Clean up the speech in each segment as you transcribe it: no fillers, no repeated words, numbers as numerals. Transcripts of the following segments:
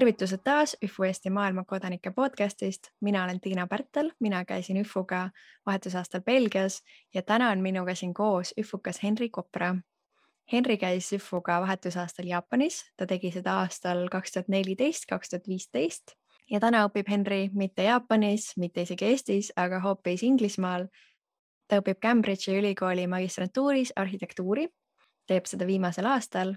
Tervitused taas ÜFU Eesti maailmakodanike podcastist. Mina olen Tiina Pärtel, mina käisin ÜFUga vahetusaastal Belgias ja täna on minuga siin koos ÜFUkas Henri Kopra. Henri käis ÜFUga vahetusaastal Jaapanis, ta tegi seda aastal 2014-2015 ja täna õpib Henri mitte Jaapanis, mitte isegi Eestis, aga hoopis Inglismaal. Ta õpib Cambridge'i ülikooli magistrantuuris arhitektuuri, teeb seda viimasel aastal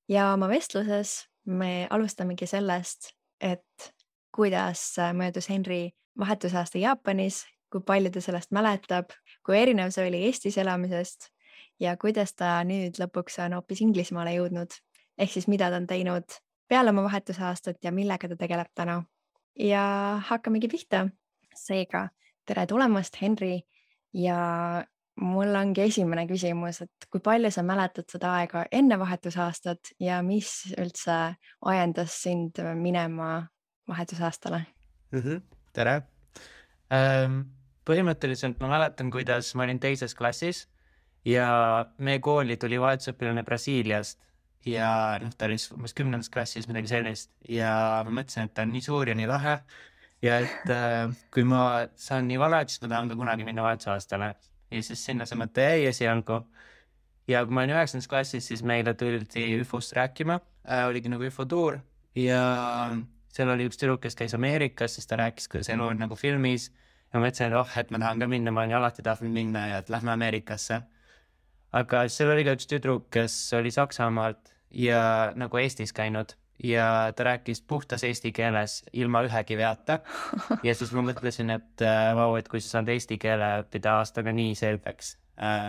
ja oma vestluses me alustamegi sellest, et kuidas möödus Henri vahetusaasta Jaapanis, kui palju ta sellest mäletab, kui erinev see oli Eestis elamisest ja kuidas ta nüüd lõpuks on hoopis Inglismaale jõudnud. Ehk siis mida ta on teinud peale oma vahetusaastat ja millega ta tegeleb täna. Ja hakkamegi pihta. Seega, tere tulemast, Henri. Ja mul ongi esimene küsimus, et kui palju sa mäletad seda aega enne vahetusaastat ja mis üldse ajendas sind minema vahetusaastale? Tere! Põhimõtteliselt ma mäletan, kuidas ma olin teises klassis ja meie kooli tuli vahetusõpilane Brasiiliast ja ta oli umbes 10. klassis midagi sellist ja ma mõtlesin, et ta on nii suur ja nii lahe ja et kui ma saan nii vana, siis ma tahan ka kunagi minna vahetusaastale. Ja siis sinna see mõte jäi esialgu. Ja kui ma olin 9. klassis, siis meile tuldi ÜFUst rääkima. Oligi nagu ÜFU tuur ja seal oli üks tüdruk, kes käis Ameerikas, siis ta rääkis, kuidas elu on nagu filmis. Ja ma mõtlesin, et ma tahan ka minna, ma olen alati tahtnud minna ja et lähme Ameerikasse. Aga seal oli ka üks tüdruk, kes oli Saksamaalt ja nagu Eestis käinud ja ta rääkis puhtas eesti keeles ilma ühegi veata. Ja siis ma mõtlesin, et kui sa saad eesti keele õppida aastaga nii selgeks,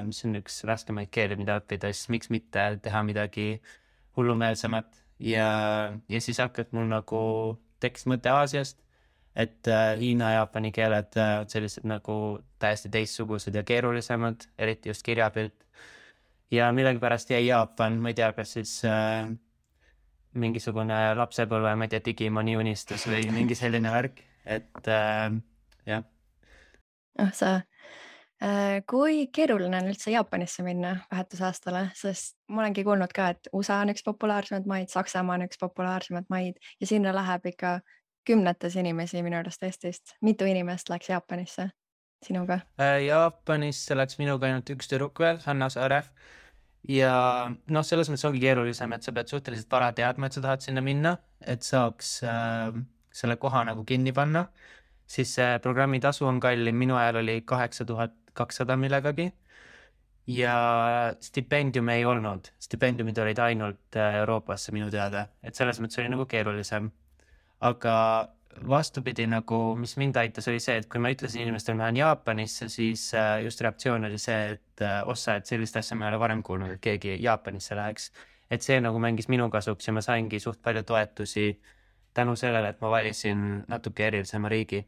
mis on üks raskemaid keeli, mida õppida, siis miks mitte teha midagi hullumeelsemat. Ja siis hakkad mul nagu tekkis mõte Aasiast, et Hiina ja Jaapani keeled on sellised nagu täiesti teistsugused ja keerulisemad, eriti just kirjapilt. Ja millegipärast jäi Jaapan, ma ei tea, kas siis mingisugune lapsepõlve, ma ei tea, Digimoni unistus või mingi selline värk, et jah. Kui keeruline on üldse Jaapanisse minna vahetusaastale, sest ma olengi kuulnud ka, et USA on üks populaarsemad maid, Saksamaa on üks populaarsemad maid ja sinna läheb ikka kümnetes inimesi minu arust Eestist. Mitu inimest läks Jaapanisse sinuga? Jaapanisse läks minuga ainult üks tüdruk veel, Hanna Saare. Ja selles mõttes ongi keerulisem, et sa pead suhteliselt vara teadma, et sa tahad sinna minna, et saaks selle koha nagu kinni panna. Siis programmi tasu on kallim, minu ajal oli 8200 millegagi ja stipendium ei olnud. Stipendiumid olid ainult Euroopasse minu teada, et selles mõttes oli nagu keerulisem. Aga vastupidi, nagu mis mind aitas, oli see, et kui ma ütlesin inimestel, ma olen Jaapanisse, siis just reaktsioon oli see, et et sellist asja ma ei ole varem kuulnud, et keegi Jaapanisse läheks. Et see nagu mängis minu kasuks ja ma saingi suht palju toetusi tänu sellele, et ma valisin natuke erilisema riigi.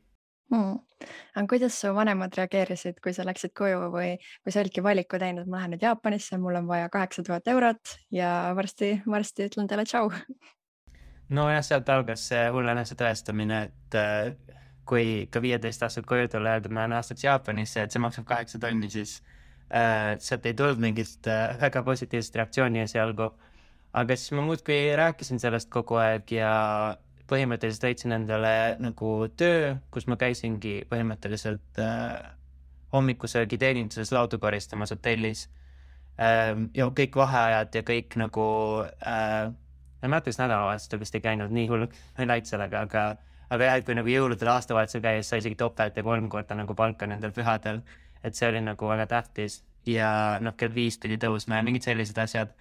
Aga kuidas su vanemad reageerisid, kui sa läksid koju või kui sa olidki valiku teinud, ma lähen nüüd Jaapanisse, mul on vaja 8000 eurot ja varsti ütlen teile tšau? Nojah, sealt algas see hullenese tõestamine, et kui ka 15 aastat koju tulla öelda, ma olen aastaks Jaapanisse, et see maksab 8 tonni, siis sealt ei tulnud mingit väga positiivset reaktsiooni esialgu. Aga siis ma muudkui rääkisin sellest kogu aeg ja põhimõtteliselt leidsin endale nagu töö, kus ma käisingi põhimõtteliselt hommikusöögi teeninduses laudu koristamas hotellis. Ja kõik vaheajad ja kõik nagu ma mõtles nädalavahetustel vist ei käinud nii hull, ma ei läinud sellega, aga jah, kui nagu jõuludel aastavahetusel käis, sai isegi topelt ja 3 korda nagu palka nendel pühadel, et see oli nagu väga tähtis ja kell 5 pidi tõusma ja mingid sellised asjad,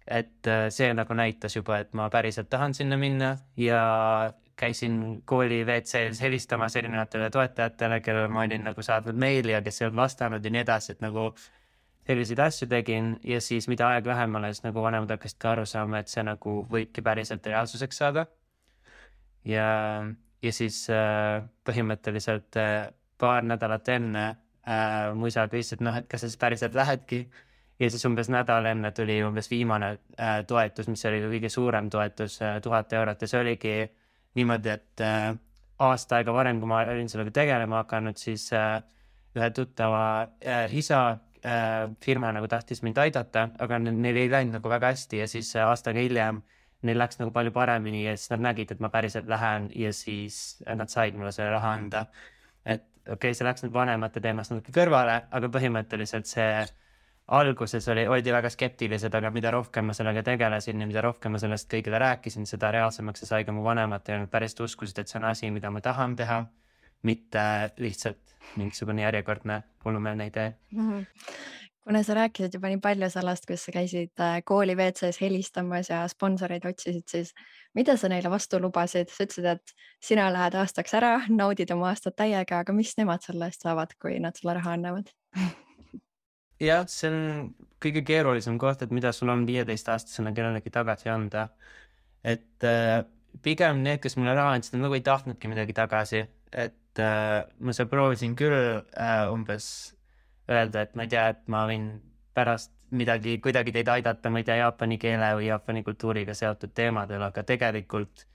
et see nagu näitas juba, et ma päriselt tahan sinna minna ja käisin kooli WC-s helistamas erinevatele toetajatele, kellele ma olin nagu saadnud meili ja kes ei olnud vastanud ja nii edasi, et nagu selliseid asju tegin ja siis mida aeg lähemale, siis nagu vanemad hakkasid ka aru saama, et see nagu võibki päriselt reaalsuseks saada. Ja siis põhimõtteliselt paar nädalat enne mu isa küsis, et kas sa siis päriselt lähedki. Ja siis umbes nädal enne tuli umbes viimane toetus, mis oli kõige suurem toetus, 1000 eurot ja see oligi niimoodi, et aasta aega varem, kui ma olin sellega tegelema hakanud, siis ühe tuttava isa firma nagu tahtis mind aidata, aga neil ei läinud nagu väga hästi ja siis aastaga hiljem neil läks nagu palju paremini ja siis nad nägid, et ma päriselt lähen ja siis nad said mulle selle raha anda. Et okei, see läks nüüd vanemate teemast natuke kõrvale, aga põhimõtteliselt see alguses oldi väga skeptilised, aga mida rohkem ma sellega tegelesin ja mida rohkem ma sellest kõigile rääkisin, seda reaalsemaks see sai ka mu vanemad ja nad päriselt uskusid, et see on asi, mida ma tahan teha, mitte lihtsalt mingisugune järjekordne hullumeelne idee. Kuna sa rääkisid juba nii palju sellest, kus sa käisid kooli WC-s helistamas ja sponsoreid otsisid, siis mida sa neile vastu lubasid? Sa ütlesid, et sina lähed aastaks ära, naudid oma aastat täiega, aga mis nemad selle eest saavad, kui nad sulle raha annavad? Jah, see on kõige keerulisem koht, et mida sul on 15-aastasena kellelegi tagasi anda. Et pigem need, kes mulle raha andsid, nagu ei tahtnudki midagi tagasi. Et ma seal proovisin küll umbes öelda, et ma ei tea, et ma võin pärast midagi kuidagi teid aidata, ma ei tea, jaapani keele või jaapani kultuuriga seotud teemadel, aga tegelikult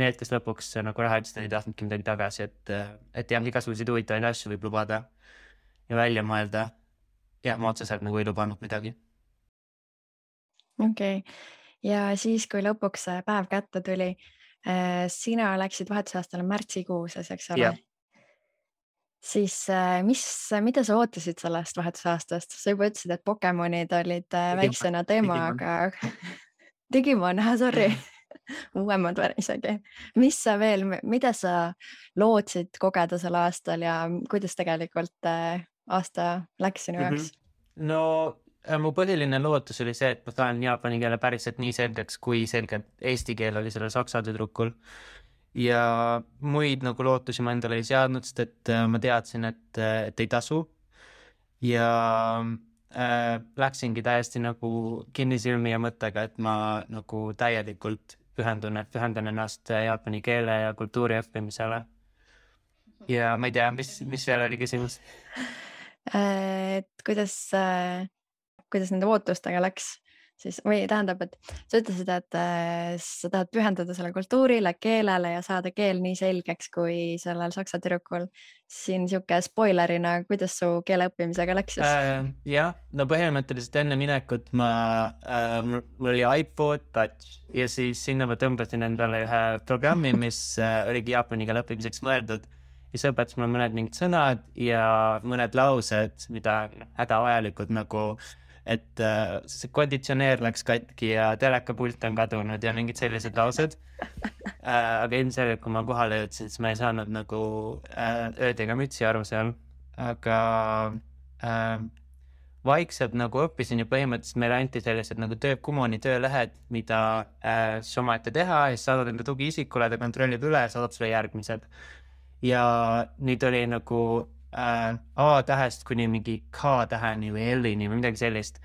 need, kes lõpuks nagu raha ütlesid, ei tahtnudki midagi tagasi, et jah, igasuguseid huvitavaid asju võib lubada ja välja mõelda. Jah, ma otseselt nagu ei lubanud midagi. Okei. Ja siis, kui lõpuks see päev kätte tuli, sina läksid vahetusaastale märtsikuuses, eks ole? Siis mida sa ootasid sellest vahetusaastast? Sa juba ütlesid, et Pokemonid olid väiksena teema, aga Digimon, sorry, uuemad isegi. Mida sa lootsid kogeda sel aastal ja kuidas tegelikult aasta läks sinu jaoks? No mu põhiline lootus oli see, et ma saan jaapani keele päriselt nii selgeks, kui selgelt eesti keel oli sellel saksa tüdrukul. Ja muid nagu lootusi ma endale ei seadnud, sest et ma teadsin, et ei tasu. Ja läksingi täiesti nagu kinnisilmi ja mõttega, et ma nagu täielikult pühendan ennast jaapani keele ja kultuuri õppimisele. Ja ma ei tea, mis veel oli küsimus? Et kuidas nende ootustega läks siis, või tähendab, et sa ütlesid, et sa tahad pühendada selle kultuurile, keelele ja saada keel nii selgeks kui sellel saksa tüdrukul. Siin siuke spoilerina, kuidas su keele õppimisega läks siis? Jah, no põhimõtteliselt enne minekut mul oli iPod Touch ja siis sinna ma tõmbasin endale ühe programmi, mis oligi jaapani keele õppimiseks mõeldud. Ja see õpetas mulle mõned mingid sõnad ja mõned laused, mida hädavajalikud nagu, et see konditsioneer läks katki ja telekapult on kadunud ja mingid sellised laused. Aga ilmselgelt, kui ma kohale jõudsin, siis ma ei saanud nagu ööd ega mütsi aru seal. Aga vaikselt nagu õppisin ja põhimõtteliselt meile anti sellised nagu Kumoni töölehed, mida siis omaette teha ja siis saadad enda tugiisikule, ta kontrollib üle ja saadab sulle järgmised. Ja nüüd oli nagu A-tähest kuni mingi K-täheni või L-ini või midagi sellist.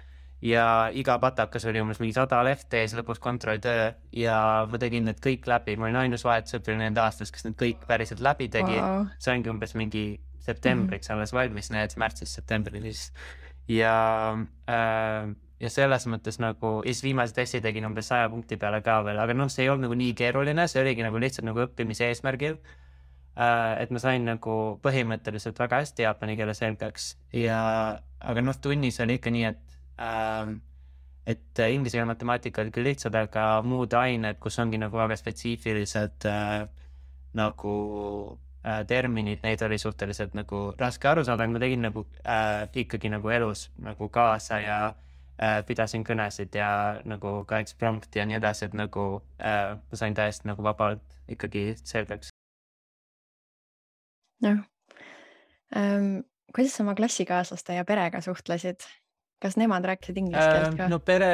Ja iga patakas oli umbes mingi 100 lehte ja siis lõpus kontrolltöö ja ma tegin need kõik läbi. Ma olin ainus vahetusõpilane nende aastas, kes need kõik päriselt läbi tegi. Wow. See ongi umbes mingi septembriks alles valmis, need märtsis septembrilis. Ja selles mõttes nagu, ja siis viimase testi tegin umbes 100 punkti peale ka veel, aga see ei olnud nagu nii keeruline, see oligi nagu lihtsalt nagu õppimise eesmärgil. Et ma sain nagu põhimõtteliselt väga hästi jaapani keele selgeks aga tunnis oli ikka nii, et inglise keele matemaatika oli küll lihtsad, aga muud ained, kus ongi nagu väga spetsiifilised nagu terminid, neid oli suhteliselt nagu raske aru saada, aga ma tegin nagu ikkagi nagu elus nagu kaasa ja pidasin kõnesid ja nagu ka eksprompti ja nii edasi, et nagu ma sain täiesti nagu vabalt ikkagi selgeks. Kuidas sa oma klassikaaslaste ja perega suhtlesid? Kas nemad rääkisid inglise keelt ka? No pere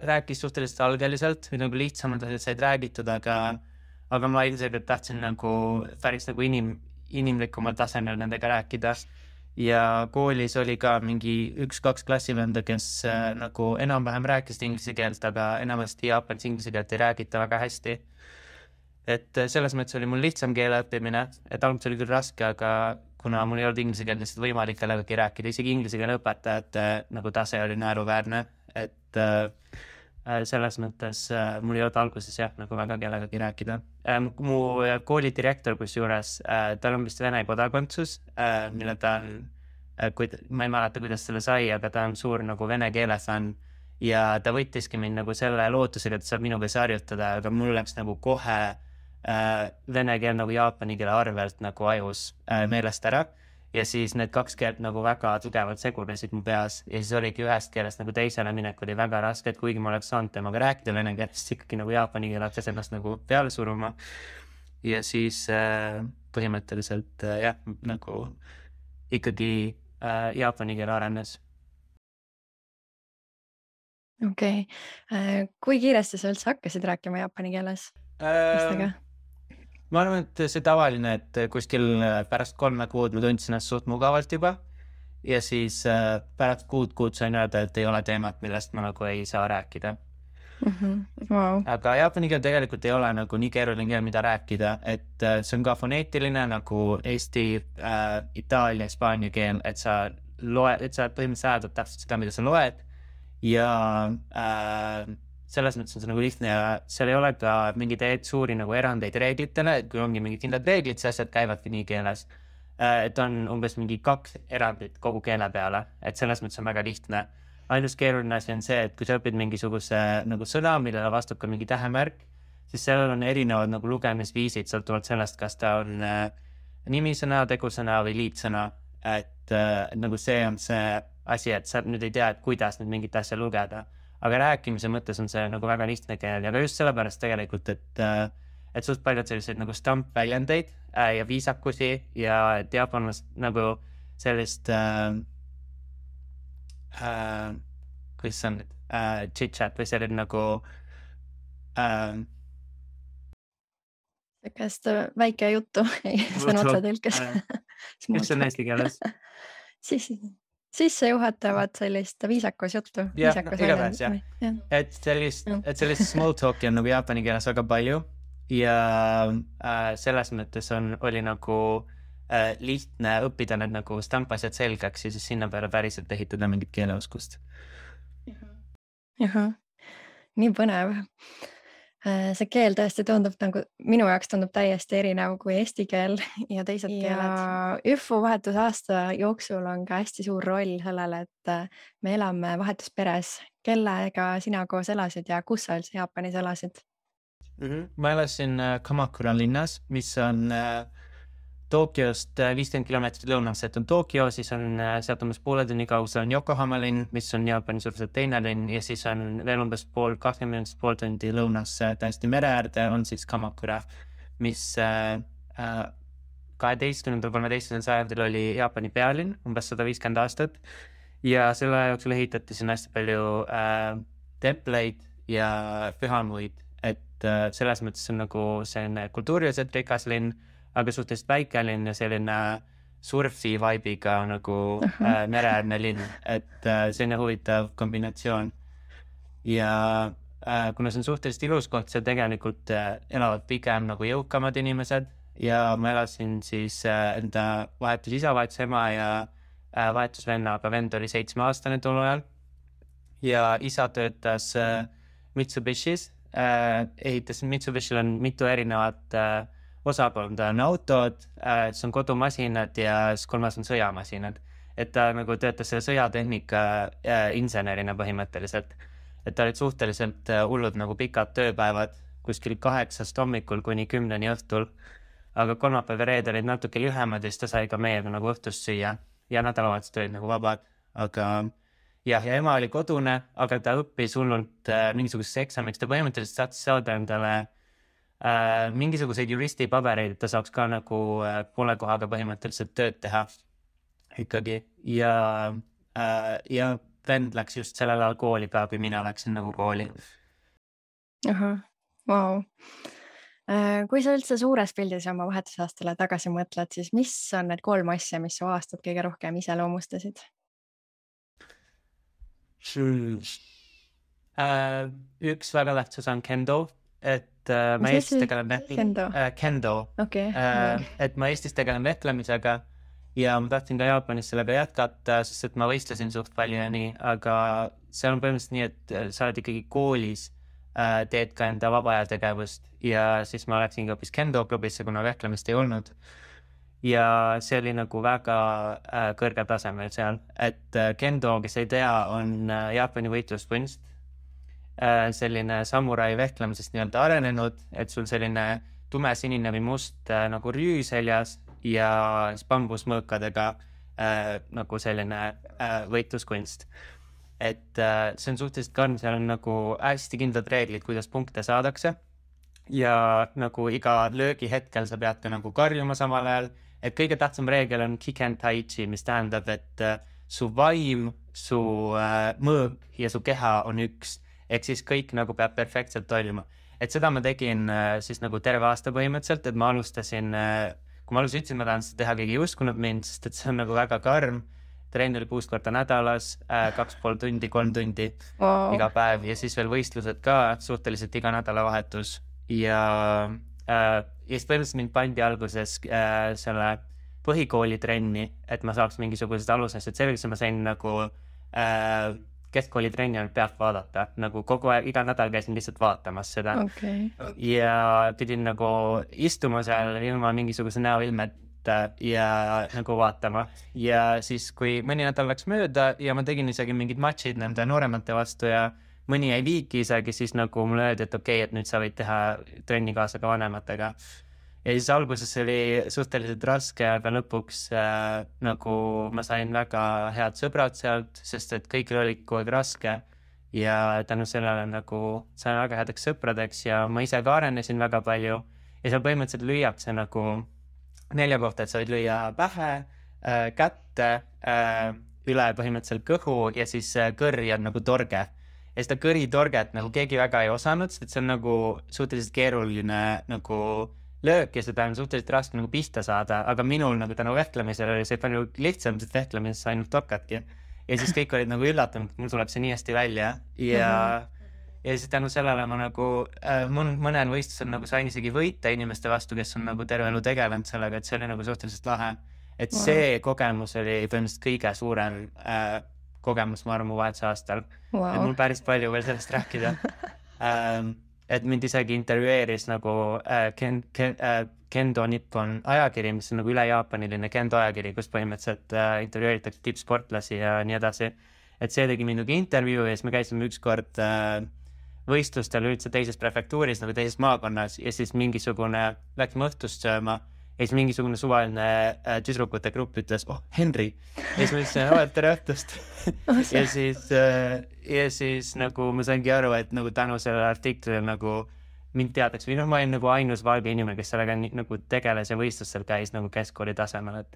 rääkis suhteliselt algeliselt või nagu lihtsamad asjad said räägitud, aga ma ilmselt tahtsin nagu päris nagu inimlikumal tasemel nendega rääkida. Ja koolis oli ka mingi 1-2 klassivenda, kes nagu enam-vähem rääkisid inglise keelt, aga enamasti jaapanis inglise keelt ei räägita väga hästi. Et selles mõttes oli mul lihtsam keele õppimine, et alguses oli küll raske, aga kuna mul ei olnud inglise keelt lihtsalt võimalik kellegagi rääkida, isegi inglise keele õpetajate nagu tase oli naeruväärne, et selles mõttes mul ei olnud alguses jah nagu väga kellegagi rääkida. Mu kooli direktor kusjuures, tal on vist Vene kodakondsus, mille ta on, ma ei mäleta, kuidas selle sai, aga ta on suur nagu vene keele fänn ja ta võttiski mind nagu selle lootusega, et saab minuga harjutada, aga mul läks nagu kohe vene keel nagu jaapani keele arvelt nagu ajus meelest ära ja siis need kaks keelt nagu väga tugevalt segunesid mu peas ja siis oligi ühest keelest nagu teisele minek oli väga raske, et kuigi ma oleks saanud temaga rääkida vene keelest, ikkagi nagu jaapani keel hakkas ennast nagu peale suruma ja siis põhimõtteliselt jah, nagu ikkagi jaapani keel arenes. Okei. Kui kiiresti sa üldse hakkasid rääkima jaapani keeles? Ma arvan, et see tavaline, et kuskil pärast 3 kuud ma tundsin ennast suht mugavalt juba ja siis pärast kuud sain öelda, et ei ole teemat, millest ma nagu ei saa rääkida. Wow. Aga jaapani keel tegelikult ei ole nagu nii keeruline keel, mida rääkida, et see on ka foneetiline nagu Eesti, Itaalia, Hispaania keel, et sa põhimõtteliselt hääldad täpselt seda, mida sa loed ja selles mõttes on see nagu lihtne ja seal ei ole ka mingeid suuri nagu erandeid reeglitele, et kui ongi mingid kindlad reeglid, see asjad käivadki nii keeles. Et on umbes mingi 2 erandit kogu keele peale, et selles mõttes on väga lihtne. Ainus keeruline asi on see, et kui sa õpid mingisuguse nagu sõna, millele vastab ka mingi tähemärk, siis seal on erinevad nagu lugemisviisid, sõltuvalt sellest, kas ta on nimisõna, tegusõna või liitsõna. Et nagu see on see asi, et sa nüüd ei tea, et kuidas nüüd mingit asja lugeda. Aga rääkimise mõttes on see nagu väga lihtne keel ja ka just sellepärast tegelikult, et suht paljud selliseid nagu stampväljendeid ja viisakusi ja et jaapanlast nagu sellist kuidas see on nüüd chit-chat või selline nagu Sellist väike juttu sõna otsa tõlkes. mis on eesti keeles? Sissejuhatavat sellist viisakus juttu. Jah, igatahes jah. Et sellist small talki on nagu jaapani keeles väga palju ja selles mõttes oli nagu lihtne õppida need nagu stampasjad selgeks ja siis sinna peale päriselt ehitada mingit keeleoskust. Nii põnev. See keel tõesti tundub nagu, minu jaoks tundub täiesti erinev kui eesti keel ja teised keeled. Ja ÜFU vahetusaasta jooksul on ka hästi suur roll sellele, et me elame vahetusperes. Kellega sina koos elasid ja kus sa üldse Jaapanis elasid? Ma elasin Kamakura linnas, mis on Tokyost 50 kilomeetrit lõunas, et on Tokyo, siis on sealt umbes poole tunni kaugusel on Yokohama linn, mis on Jaapani suuruselt teine linn ja siis on veel umbes 20 minutit pool tundi lõunas täiesti mere äärde on siis Kamakura, mis 12-13 sajandil oli Jaapani pealinn, umbes 150 aastat ja selle jooksul ehitati siin hästi palju templeid ja pühamuid, et selles mõttes on nagu selline kultuuriliselt rikas linn, aga suhteliselt väikelinn ja selline surfi vibe'iga nagu mereäärne linn, et selline huvitav kombinatsioon. Ja kuna see on suhteliselt ilus koht, seal tegelikult elavad pigem nagu jõukamad inimesed ja ma elasin siis enda vahetus isa, vahetus ema ja vahetus venna, aga vend oli 7-aastane tol ajal ja isa töötas Mitsubishis, Mitsubishil on mitu erinevat osakonda on autod, see on kodumasinad ja siis 3 on sõjamasinad. Et ta nagu töötas selle sõjatehnika insenerina põhimõtteliselt. Et ta olid suhteliselt hullud nagu pikad tööpäevad kuskil 8 hommikul kuni 10 õhtul. Aga kolmapäev ja reede olid natuke lühemad ja siis ta sai ka meiega nagu õhtust süüa ja nädalavahetused olid nagu vabad. Aga ja ema oli kodune, aga ta õppis hullult mingisuguseks eksamiks. Ta põhimõtteliselt saatis saada endale mingisuguseid juristipabereid, et ta saaks ka nagu poole kohaga põhimõtteliselt tööd teha ikkagi ja vend läks just sellel ajal kooli ka, kui mina läksin nagu kooli. Wow. Kui sa üldse suures pildis oma vahetusaastale tagasi mõtled, siis mis on need 3 asja, mis su aastat kõige rohkem iseloomustasid? Üks väga tähtsas on kendo, et ma Eestis tegelen kendo. Okay. Et ma Eestis tegelen vehklemisega ja ma tahtsin ka Jaapanis sellega jätkata, sest et ma võistlesin suht palju ja nii, aga seal on põhimõtteliselt nii, et sa oled ikkagi koolis, teed ka enda vabaajategevust ja siis ma läksin ka hoopis kendo klubisse, kuna vehklemist ei olnud. Ja see oli nagu väga kõrgel tasemel seal, et kendo, kes ei tea, on Jaapani võitluskunst, selline samurai vehklemisest nii-öelda arenenud, et sul selline tumesinine või must nagu rüü seljas ja siis bambusmõõkadega nagu selline võitluskunst. Et see on suhteliselt karm, seal on nagu hästi kindlad reeglid, kuidas punkte saadakse ja nagu iga löögi hetkel sa pead ka nagu karjuma samal ajal, et kõige tähtsam reegel on Kiken Taichi, mis tähendab, et su vaim, su mõõk ja su keha on üks, ehk siis kõik nagu peab perfektselt toimima. Et seda ma tegin siis nagu terve aasta põhimõtteliselt, et ma alustasin, kui ma ütlesin, ma tahan seda teha, keegi ei uskunud mind, sest et see on nagu väga karm. Trenn oli 6 korda nädalas, 2,5 tundi, 3 tundi iga päev ja siis veel võistlused ka suhteliselt iga nädalavahetus. Ja siis põhimõtteliselt mind pandi alguses selle põhikooli trenni, et ma saaks mingisugused alused selgeks, ma sain nagu keskkooli trenni ainult pealt vaadata, nagu kogu aeg, iga nädal käisin lihtsalt vaatamas seda. Ja pidin nagu istuma seal ilma mingisuguse näoilmet ja nagu vaatama. Ja siis, kui mõni nädal läks mööda ja ma tegin isegi mingid matšid nende nooremate vastu ja mõni jäi viiki isegi, siis nagu mulle öeldi, et okei, et nüüd sa võid teha trenni kaasa ka vanematega. Ja siis alguses oli suhteliselt raske, aga lõpuks nagu ma sain väga head sõbrad sealt, sest et kõigil oli kogu aeg raske ja tänu sellele nagu sain väga headeks sõpradeks ja ma ise ka arenesin väga palju ja seal põhimõtteliselt lüüakse nagu 4 kohta, et sa võid lüüa pähe, kätte, üle põhimõtteliselt kõhu ja siis kõrri on nagu torge. Ja seda kõritorget nagu keegi väga ei osanud, sest et see on nagu suhteliselt keeruline nagu löök ja seda on suhteliselt raske nagu pihta saada, aga minul nagu tänu vehklemisel oli see palju lihtsam, sest vehklemises ainult torkadki. Ja siis kõik olid nagu üllatunud, et mul tuleb see nii hästi välja ja siis tänu sellele ma nagu mõnel võistlusel nagu sain isegi võita inimeste vastu, kes on nagu terve elu tegelenud sellega, et see oli nagu suhteliselt lahe. Et see kogemus oli põhimõtteliselt kõige suurem kogemus, ma arvan, mu vahetuse aastal. Et mul päris palju veel sellest rääkida. Et mind isegi intervjueeris nagu Kendo Nippon ajakiri, mis on nagu üle jaapaniline Kendo ajakiri, kus põhimõtteliselt intervjueeritakse tippsportlasi ja nii edasi. Et see tegi minugi intervjuu ja siis me käisime ükskord võistlustel üldse teises prefektuuris, nagu teises maakonnas ja siis mingisugune läksime õhtust sööma ja siis mingisugune suvaline tüdrukute grupp ütles, Henri. Ja siis ma ütlesin, tere õhtust. ja siis nagu ma saingi aru, et nagu tänu sellele artiklile nagu mind teadaks või ma olin nagu ainus valge inimene, kes sellega nagu tegeles ja võistlustel käis nagu keskkooli tasemel, et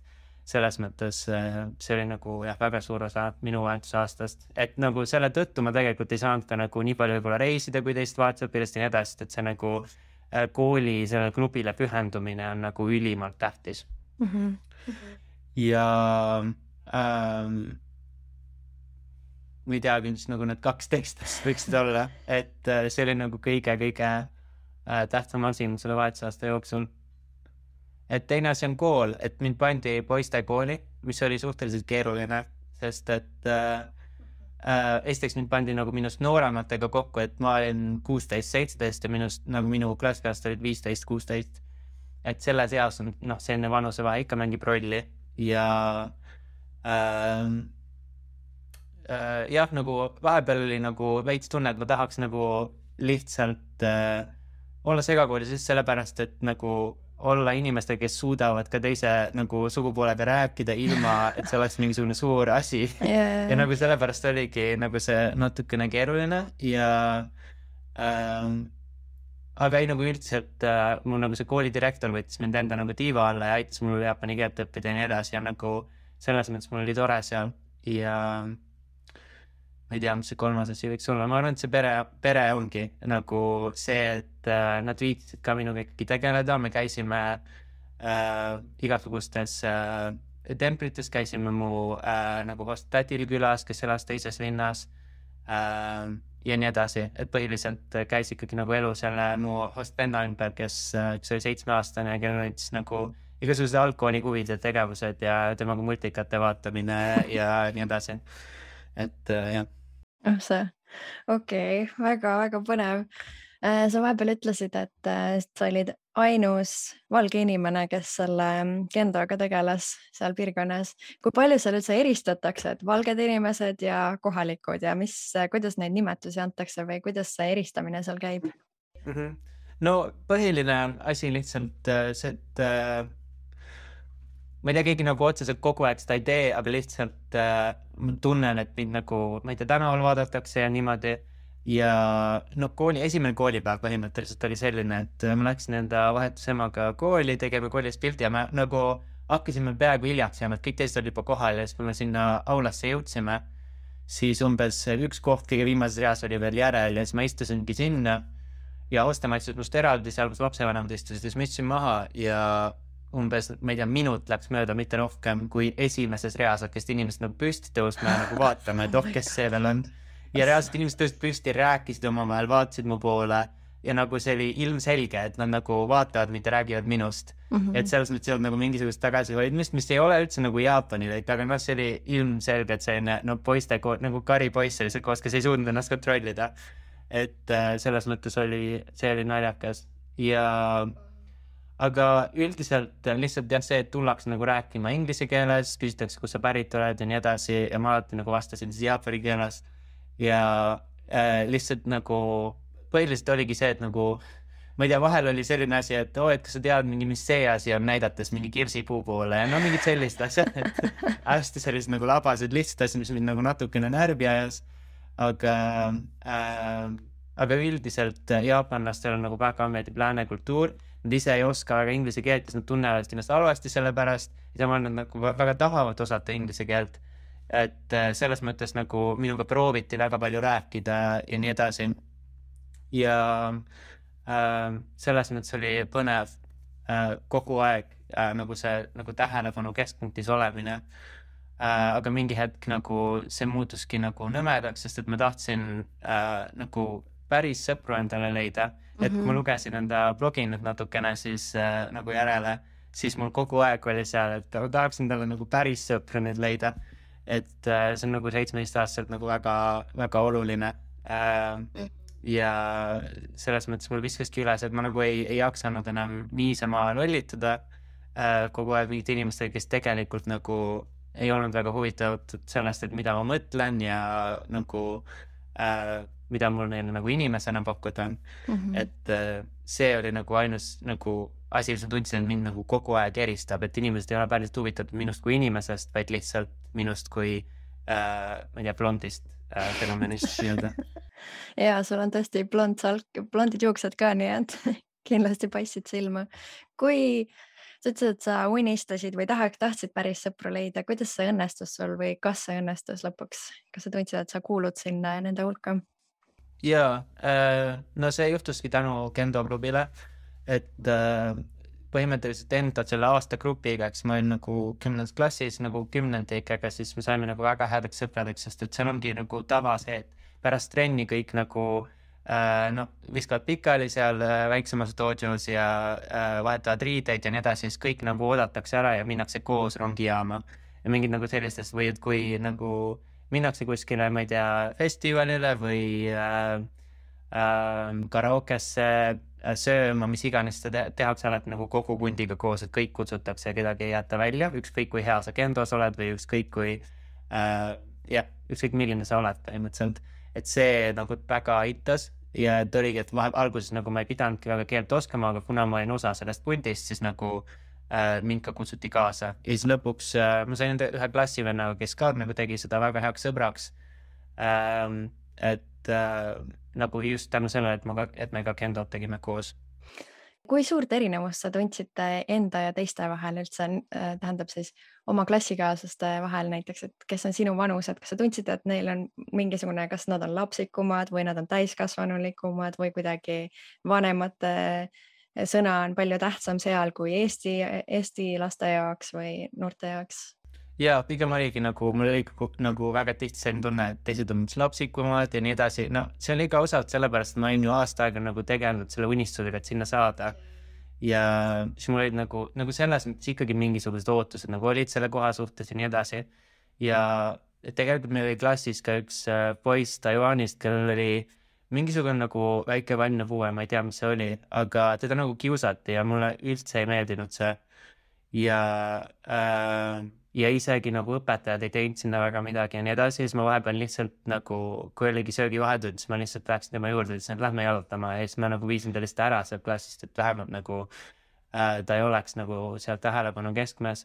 selles mõttes see oli nagu väga suur osa minu vahetuse aastast, et nagu selle tõttu ma tegelikult ei saanud ka nagu nii palju võib-olla reisida, kui teist vahetusõpilast ja nii edasi, et see nagu kooli selle klubile pühendumine on nagu ülimalt tähtis. Ja ma ei teagi, mis nagu need 2 tekstast võiksid olla, et see oli nagu kõige tähtsam asi selle vahetusaasta jooksul. Et teine asi on kool, et mind pandi poiste kooli, mis oli suhteliselt keeruline, sest et esiteks mind pandi nagu minust noorematega kokku, et ma olin 16-17 ja minust nagu minu klassikast olid 15-16. Et selles eas on selline vanusevahe ikka mängib rolli ja nagu vahepeal oli nagu veits tunne, et ma tahaks nagu lihtsalt olla segakoolis just sellepärast, et nagu olla inimestega, kes suudavad ka teise nagu sugupoolega rääkida ilma, et see oleks mingisugune suur asi. Ja nagu sellepärast oligi nagu see natukene keeruline ja aga ei nagu üldiselt mul nagu see koolidirektor võttis mind enda nagu tiiva alla ja aitas mul jaapani keelt õppida ja nii edasi ja nagu selles mõttes mul oli tore seal ja ma ei tea, mis see 3. asi võiks olla. Ma arvan, et see pere ongi nagu see, et nad viitsid ka minuga ikkagi tegeleda. Me käisime igasugustes templites, käisime mu nagu host-tädil külas, kes elas teises linnas ja nii edasi. Et põhiliselt käis ikkagi nagu elu selle mu host-venna ümber, kes oli 7-aastane ja kellel olid siis nagu igasugused algkooli huvid ja tegevused ja temaga multikate vaatamine ja nii edasi. Et jah. See, okei, väga-väga põnev. Sa vahepeal ütlesid, et sa olid ainus valge inimene, kes selle kendoga tegeles seal piirkonnas. Kui palju seal üldse eristatakse, et valged inimesed ja kohalikud ja kuidas neid nimetusi antakse või kuidas see eristamine seal käib? No põhiline asi lihtsalt see, et ma ei tea, keegi nagu otseselt kogu aeg seda ei tee, aga lihtsalt ma tunnen, et mind nagu, ma ei tea, tänaval vaadatakse ja niimoodi. Ja no esimene koolipäev põhimõtteliselt oli selline, et ma läksin enda vahetusemaga kooli, tegime koolis pildi ja me nagu hakkasime peaaegu hiljaks jääma, et kõik teised olid juba kohal ja siis kui me sinna aulasse jõudsime, siis umbes üks koht kõige viimases reas oli veel järel ja siis ma istusingi sinna ja Ostemaa istus must eraldi, seal kus lapsevanemad istusid, siis ma istusin maha ja umbes, ma ei tea, minut läks mööda, mitte rohkem, kui esimeses reas hakkasid inimesed nagu püsti tõusma ja nagu vaatama, et kes see veel on. Ja reaalselt inimesed tõusid püsti, rääkisid omavahel, vaatasid mu poole ja nagu see oli ilmselge, et nad nagu vaatavad, mitte räägivad minust. Et selles mõttes ei olnud nagu mingisugust tagasihoidmist, mis ei ole üldse nagu Jaapanil, aga noh, see oli ilmselge, et selline poiste, nagu karipoiss oli see koos, kes ei suutnud ennast kontrollida. Et selles mõttes see oli naljakas aga üldiselt lihtsalt jah see, et tullakse nagu rääkima inglise keeles, küsitakse, kus sa pärit oled ja nii edasi ja ma alati nagu vastasin siis jaapani keeles ja lihtsalt nagu põhiliselt oligi see, et nagu ma ei tea, vahel oli selline asi, et et kas sa tead mingi, mis see asi on, näidates mingi kirsipuu poole ja no mingid sellist asjad, et hästi sellised nagu labased lihtsad asjad, mis mind nagu natukene närvi ajas, aga üldiselt jaapanlastel on nagu väga meeldib lääne kultuur, nad ise ei oska väga inglise keelt, siis nad tunnevad ennast halvasti selle pärast ja samal nad nagu väga tahavad osata inglise keelt, et selles mõttes nagu minuga prooviti väga palju rääkida ja nii edasi ja selles mõttes oli põnev kogu aeg nagu see nagu tähelepanu keskpunktis olemine, aga mingi hetk nagu see muutuski nagu nõmedaks, sest et ma tahtsin nagu päris sõpru endale leida, et kui ma lugesin enda blogi nüüd natukene siis nagu järele, siis mul kogu aeg oli seal, et tahaksin talle nagu päris sõpru nüüd leida, et see on nagu 17-aastaselt nagu väga, väga oluline ja selles mõttes mul viskaski üles, et ma nagu ei jaksanud enam niisama lollituda kogu aeg mingite inimestega, kes tegelikult nagu ei olnud väga huvitatud sellest, et mida ma mõtlen ja nagu mida mul neile nagu inimesena pakkuda on. Et see oli nagu ainus nagu asi, mis ma tundsin, et mind nagu kogu aeg eristab, et inimesed ei ole päriselt huvitatud minust kui inimesest, vaid lihtsalt minust kui ma ei tea, blondist fenomenist nii-öelda. Ja sul on tõesti blondid juuksed ka, nii et kindlasti paistsid silma. Kui sa ütlesid, et sa unistasid või tahtsid päris sõpru leida, kuidas see õnnestus sul või kas see õnnestus lõpuks? Kas sa tundsid, et sa kuulud sinna nende hulka? Jaa, no see juhtuski tänu Kendo klubile, et põhimõtteliselt enda selle aasta grupiga, eks ma olin nagu 10. klassis nagu 10-ndikega, siis me saime nagu väga headeks sõpradeks, sest et seal ongi nagu tava see, et pärast trenni kõik nagu viskavad pikali seal väiksemas dojos ja vahetavad riideid ja nii edasi, siis kõik nagu oodatakse ära ja minnakse koos rongijaama ja mingid nagu sellistest või et kui nagu minnakse kuskile, ma ei tea, festivalile või karaokesse sööma, mis iganes seda tehakse alati nagu kogu kundiga koos, et kõik kutsutakse ja kedagi ei jäta välja, ükskõik kui hea sa kendos oled või ükskõik kui ükskõik milline sa oled põhimõtteliselt, et see nagu väga aitas ja et oligi, et alguses nagu ma ei pidanudki väga keelt oskama, aga kuna ma olin osa sellest pundist, siis nagu mind ka kutsuti kaasa ja siis lõpuks ma sain ühe klassivennaga, kes ka nagu tegi seda väga heaks sõbraks, et nagu just tänu sellele, et me ka kendot tegime koos. Kui suurt erinevust sa tundsite enda ja teiste vahel üldse, tähendab siis oma klassikaaslaste vahel näiteks, et kes on sinu vanused, kas sa tundsid, et neil on mingisugune, kas nad on lapsikumad või nad on täiskasvanulikumad või kuidagi vanemate sõna on palju tähtsam seal kui Eesti laste jaoks või noorte jaoks? Jaa, pigem oligi nagu, mul oli nagu väga tihti selline tunne, et teised on lapsikumad ja nii edasi. No see oli ka osalt sellepärast, et ma olin ju aasta aega nagu tegelenud selle unistusega, et sinna saada. Ja siis mul olid nagu selles mõttes ikkagi mingisugused ootused nagu olid selle koha suhtes ja nii edasi. Ja tegelikult meil oli klassis ka üks poiss Taiwanist, kellel oli mingisugune nagu väike vaimne puue, ma ei tea, mis see oli, aga teda nagu kiusati ja mulle üldse ei meeldinud see. Ja isegi nagu õpetajad ei teinud sinna väga midagi ja nii edasi, siis ma vahepeal lihtsalt nagu, kui oligi söögivahetund, siis ma lihtsalt läksin tema juurde, ütlesin, et lähme jalutama ja siis ma nagu viisin ta lihtsalt ära sealt klassist, et vähemalt nagu ta ei oleks nagu seal tähelepanu keskmes.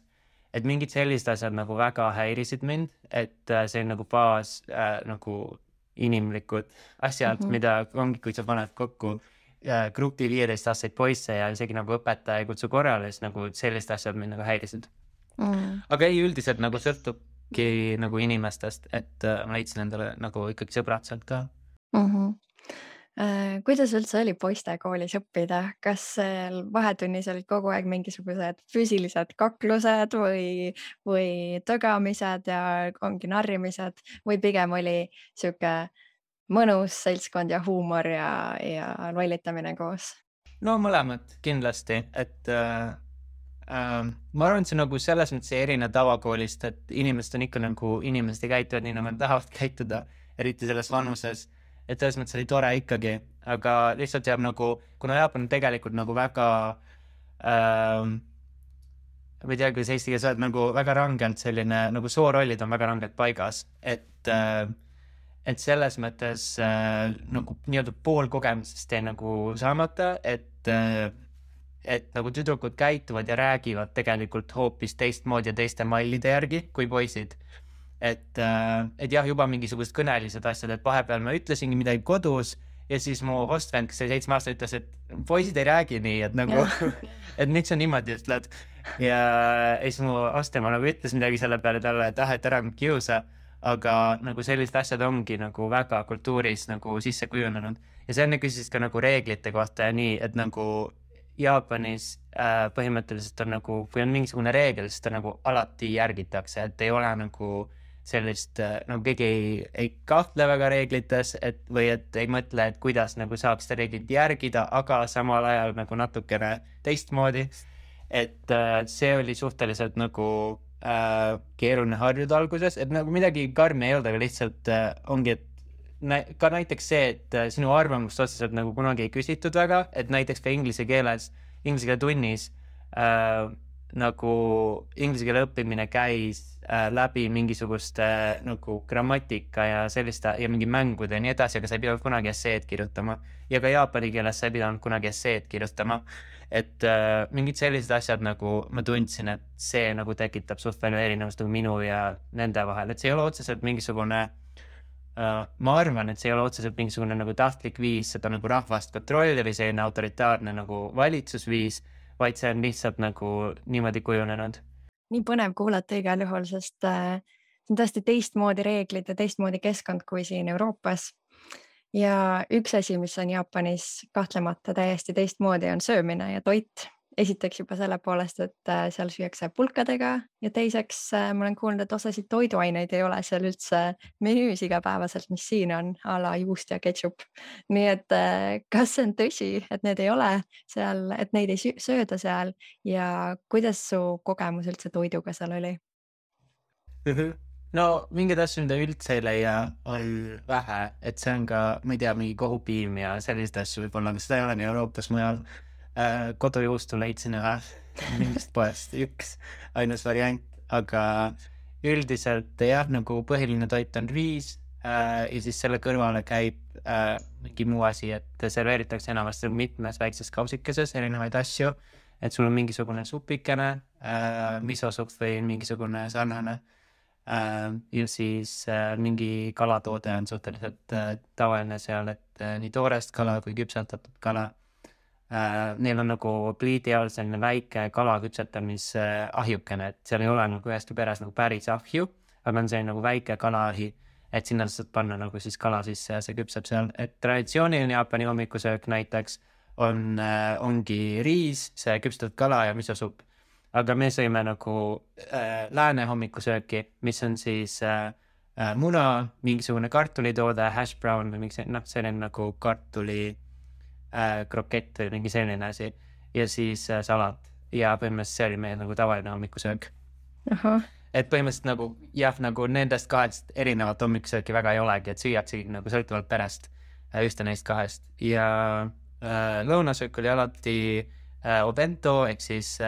Et mingid sellised asjad nagu väga häirisid mind, et see on nagu baas nagu inimlikud asjad, mida ongi, kui sa paned kokku grupi 15-aastaseid poisse ja isegi nagu õpetaja ei kutsu korrale, siis nagu sellised asjad mind nagu häirisid. Aga ei, üldiselt nagu sõltubki nagu inimestest, et ma leidsin endale nagu ikkagi sõbrad sealt ka. Kuidas üldse oli poistekoolis õppida? Kas seal vahetunnis olid kogu aeg mingisugused füüsilised kaklused või tögamised ja ongi narrimised või pigem oli sihuke mõnus seltskond ja huumor ja lollitamine koos? No mõlemad kindlasti, et ma arvan, et see nagu selles mõttes ei erine tavakoolist, et inimesed on ikka nagu, inimesed ei käituvad nii, nagu nad tahavad käituda, eriti selles vanuses, et selles mõttes oli tore ikkagi, aga lihtsalt jääb nagu, kuna Jaapan on tegelikult nagu väga ma ei tea, kuidas eesti keeles öelda, nagu väga rangelt selline, nagu soorollid on väga rangelt paigas, et selles mõttes nagu nii-öelda pool kogemusest jäi nagu saamata, et nagu tüdrukud käituvad ja räägivad tegelikult hoopis teistmoodi ja teiste mallide järgi kui poisid. Et jah, juba mingisugused kõnelised asjad, et vahepeal ma ütlesingi midagi kodus ja siis mu hostvend, kes oli 7 aastat, ütles, et poisid ei räägi nii, et nagu, et miks sa niimoodi ütled. Ja siis mu hostema nagu ütles midagi selle peale talle, et et ära kiusa, aga nagu sellised asjad ongi nagu väga kultuuris nagu sisse kujunenud. Ja see enne küsis ka nagu reeglite kohta ja nii, et nagu Jaapanis põhimõtteliselt on nagu, kui on mingisugune reegel, siis ta nagu alati järgitakse, et ei ole nagu sellist, nagu keegi ei kahtle väga reeglites, või et ei mõtle, et kuidas nagu saab seda reeglit järgida, aga samal ajal nagu natukene teistmoodi. Et see oli suhteliselt nagu keeruline harjuda alguses, et nagu midagi karmi ei olnud, aga lihtsalt ongi, et ka näiteks see, et sinu arvamust otseselt nagu kunagi ei küsitud väga, et näiteks ka inglise keele tunnis nagu inglise keele õppimine käis läbi mingisuguste nagu grammatika ja selliste ja mingi mängude ja nii edasi, aga sa ei pidanud kunagi esseed kirjutama ja ka jaapani keeles sa ei pidanud kunagi esseed kirjutama, et mingid sellised asjad nagu ma tundsin, et see nagu tekitab suht palju erinevust nagu minu ja nende vahel, et see ei ole otseselt mingisugune ma arvan, et see ei ole otseselt mingisugune nagu tahtlik viis seda nagu rahvast kontrolli või selline autoritaarne nagu valitsusviis, vaid see on lihtsalt nagu niimoodi kujunenud. Nii põnev kuulata igal juhul, sest see on tõesti teistmoodi reeglid ja teistmoodi keskkond kui siin Euroopas. Ja üks asi, mis on Jaapanis kahtlemata täiesti teistmoodi, on söömine ja toit. Esiteks juba selle poolest, et seal süüakse pulkadega ja teiseks ma olen kuulnud, et osasid toiduaineid ei ole seal üldse menüüs igapäevaselt, mis siin on, a la juust ja ketšup. Nii et kas see on tõsi, et need ei ole seal, et neid ei sööda seal ja kuidas su kogemus üldse toiduga seal oli? No mingid asju, mida üldse ei leia, on vähe, et see on ka, ma ei tea, mingi kohupiim ja sellised asju võib-olla, aga seda ei ole nii Euroopas mujal. Kodujuustu leidsin mingist poest üks ainus variant, aga üldiselt jah, nagu põhiline toit on riis ja siis selle kõrvale käib mingi muu asi, et serveeritakse enamasti mitmes väikses kausikeses erinevaid asju, et sul on mingisugune supikene, misosupp või mingisugune sarnane ja siis mingi kalatoode on suhteliselt tavaline seal, et nii toorest kala kui küpsetatud kala. Neil on nagu pliidi all selline väike kala küpsetamise ahjukene, et seal ei ole nagu üheski peres nagu päris ahju, aga on selline nagu väike kalaahi, et sinna saad panna nagu siis kala sisse ja see küpseb seal. Et traditsiooniline Jaapani hommikusöök näiteks ongi riis, see küpsetatud kala ja misosupp. Aga me sõime nagu lääne hommikusööki, mis on siis muna, mingisugune kartulitoode, hash brown või selline nagu kartuli krokett või mingi selline asi ja siis salat ja põhimõtteliselt see oli meie nagu tavaline hommikusöök. Et põhimõtteliselt nagu jah, nagu nendest kahest erinevat hommikusööki väga ei olegi, et süüaksegi nagu sõltuvalt perest ühte neist kahest ja lõunasöök oli alati obento ehk siis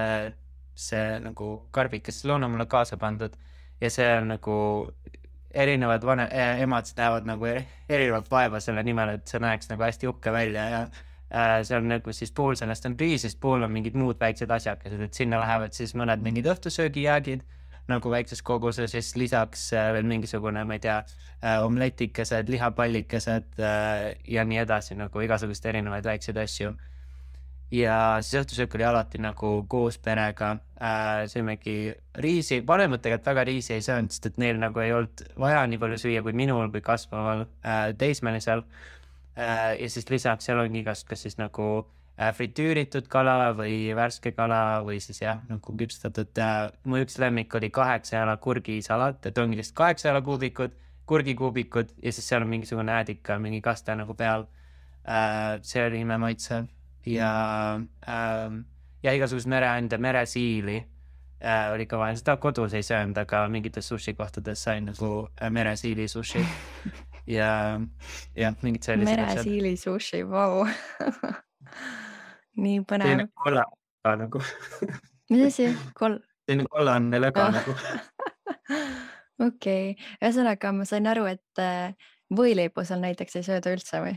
see nagu karbik, kes lõuna mulle kaasa pandud ja see on nagu erinevad emad näevad nagu erinevat vaeva selle nimel, et see näeks nagu hästi uhke välja ja see on nagu siis pool sellest on riis, siis pool on mingid muud väiksed asjakesed, et sinna lähevad siis mõned mingid õhtusöögijäägid nagu väikses koguses, siis lisaks veel mingisugune, ma ei tea, omletikesed, lihapallikesed ja nii edasi, nagu igasugust erinevaid väikseid asju. Ja siis õhtusöök oli alati nagu koos perega, sõimegi riisi, vanemad tegelikult väga riisi ei söönud, sest et neil nagu ei olnud vaja nii palju süüa kui minul või kasvaval teismelisel. Ja siis lisaks seal ongi igast, kas siis nagu fritüüritud kala või värske kala või siis jah, nagu küpstatud. Mu üks lemmik oli 8 jala kurgisalat, et ongi lihtsalt 8 jala kuubikud, kurgikuubikud ja siis seal on mingisugune äädika, mingi kaste nagu peal. See oli imemaitsev ja igasugust mereande, meresiili oli ka vaja. Seda kodus ei söönud, aga mingites sushi kohtades sain nagu meresiili sushi ja mingid sellised meresiili sushi, vau. Nii põnev. Selline kolla nagu. Mis asi? Selline kollanne löga nagu. Okei. Ühesõnaga, ma sain aru, et võileibu seal näiteks ei sööda üldse või?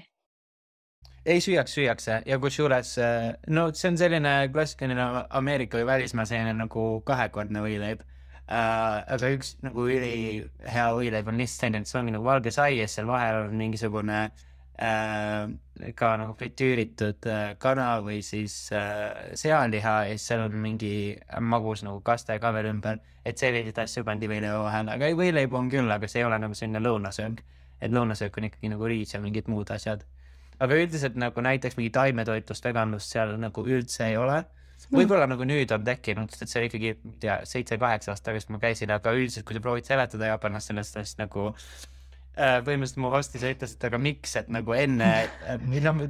Ei süüakse ja kusjuures, no see on selline klassikaline Ameerika või välismaa selline nagu kahekordne võileib. Aga üks nagu üli hea võileib on lihtsalt selline, et see ongi nagu valge sai ja seal vahel on mingisugune ka nagu fritüüritud kana või siis sealiha ja siis seal on mingi magus nagu kaste ka veel ümber, et sellised asju pandi võileiba vahel, aga võileib on küll, aga see ei ole nagu selline lõunasöök, et lõunasöök on ikkagi nagu riis ja mingid muud asjad. Aga üldiselt nagu näiteks mingi taimetoitlust, veganlust seal nagu üldse ei ole. Võib-olla nagu nüüd on tekkinud, sest see oli ikkagi 7-8 aastat tagasi ma käisin, aga üldiselt kui sa proovid seletada Jaapanast sellest, siis nagu põhimõtteliselt mu hostis ütles, et aga miks, et nagu enne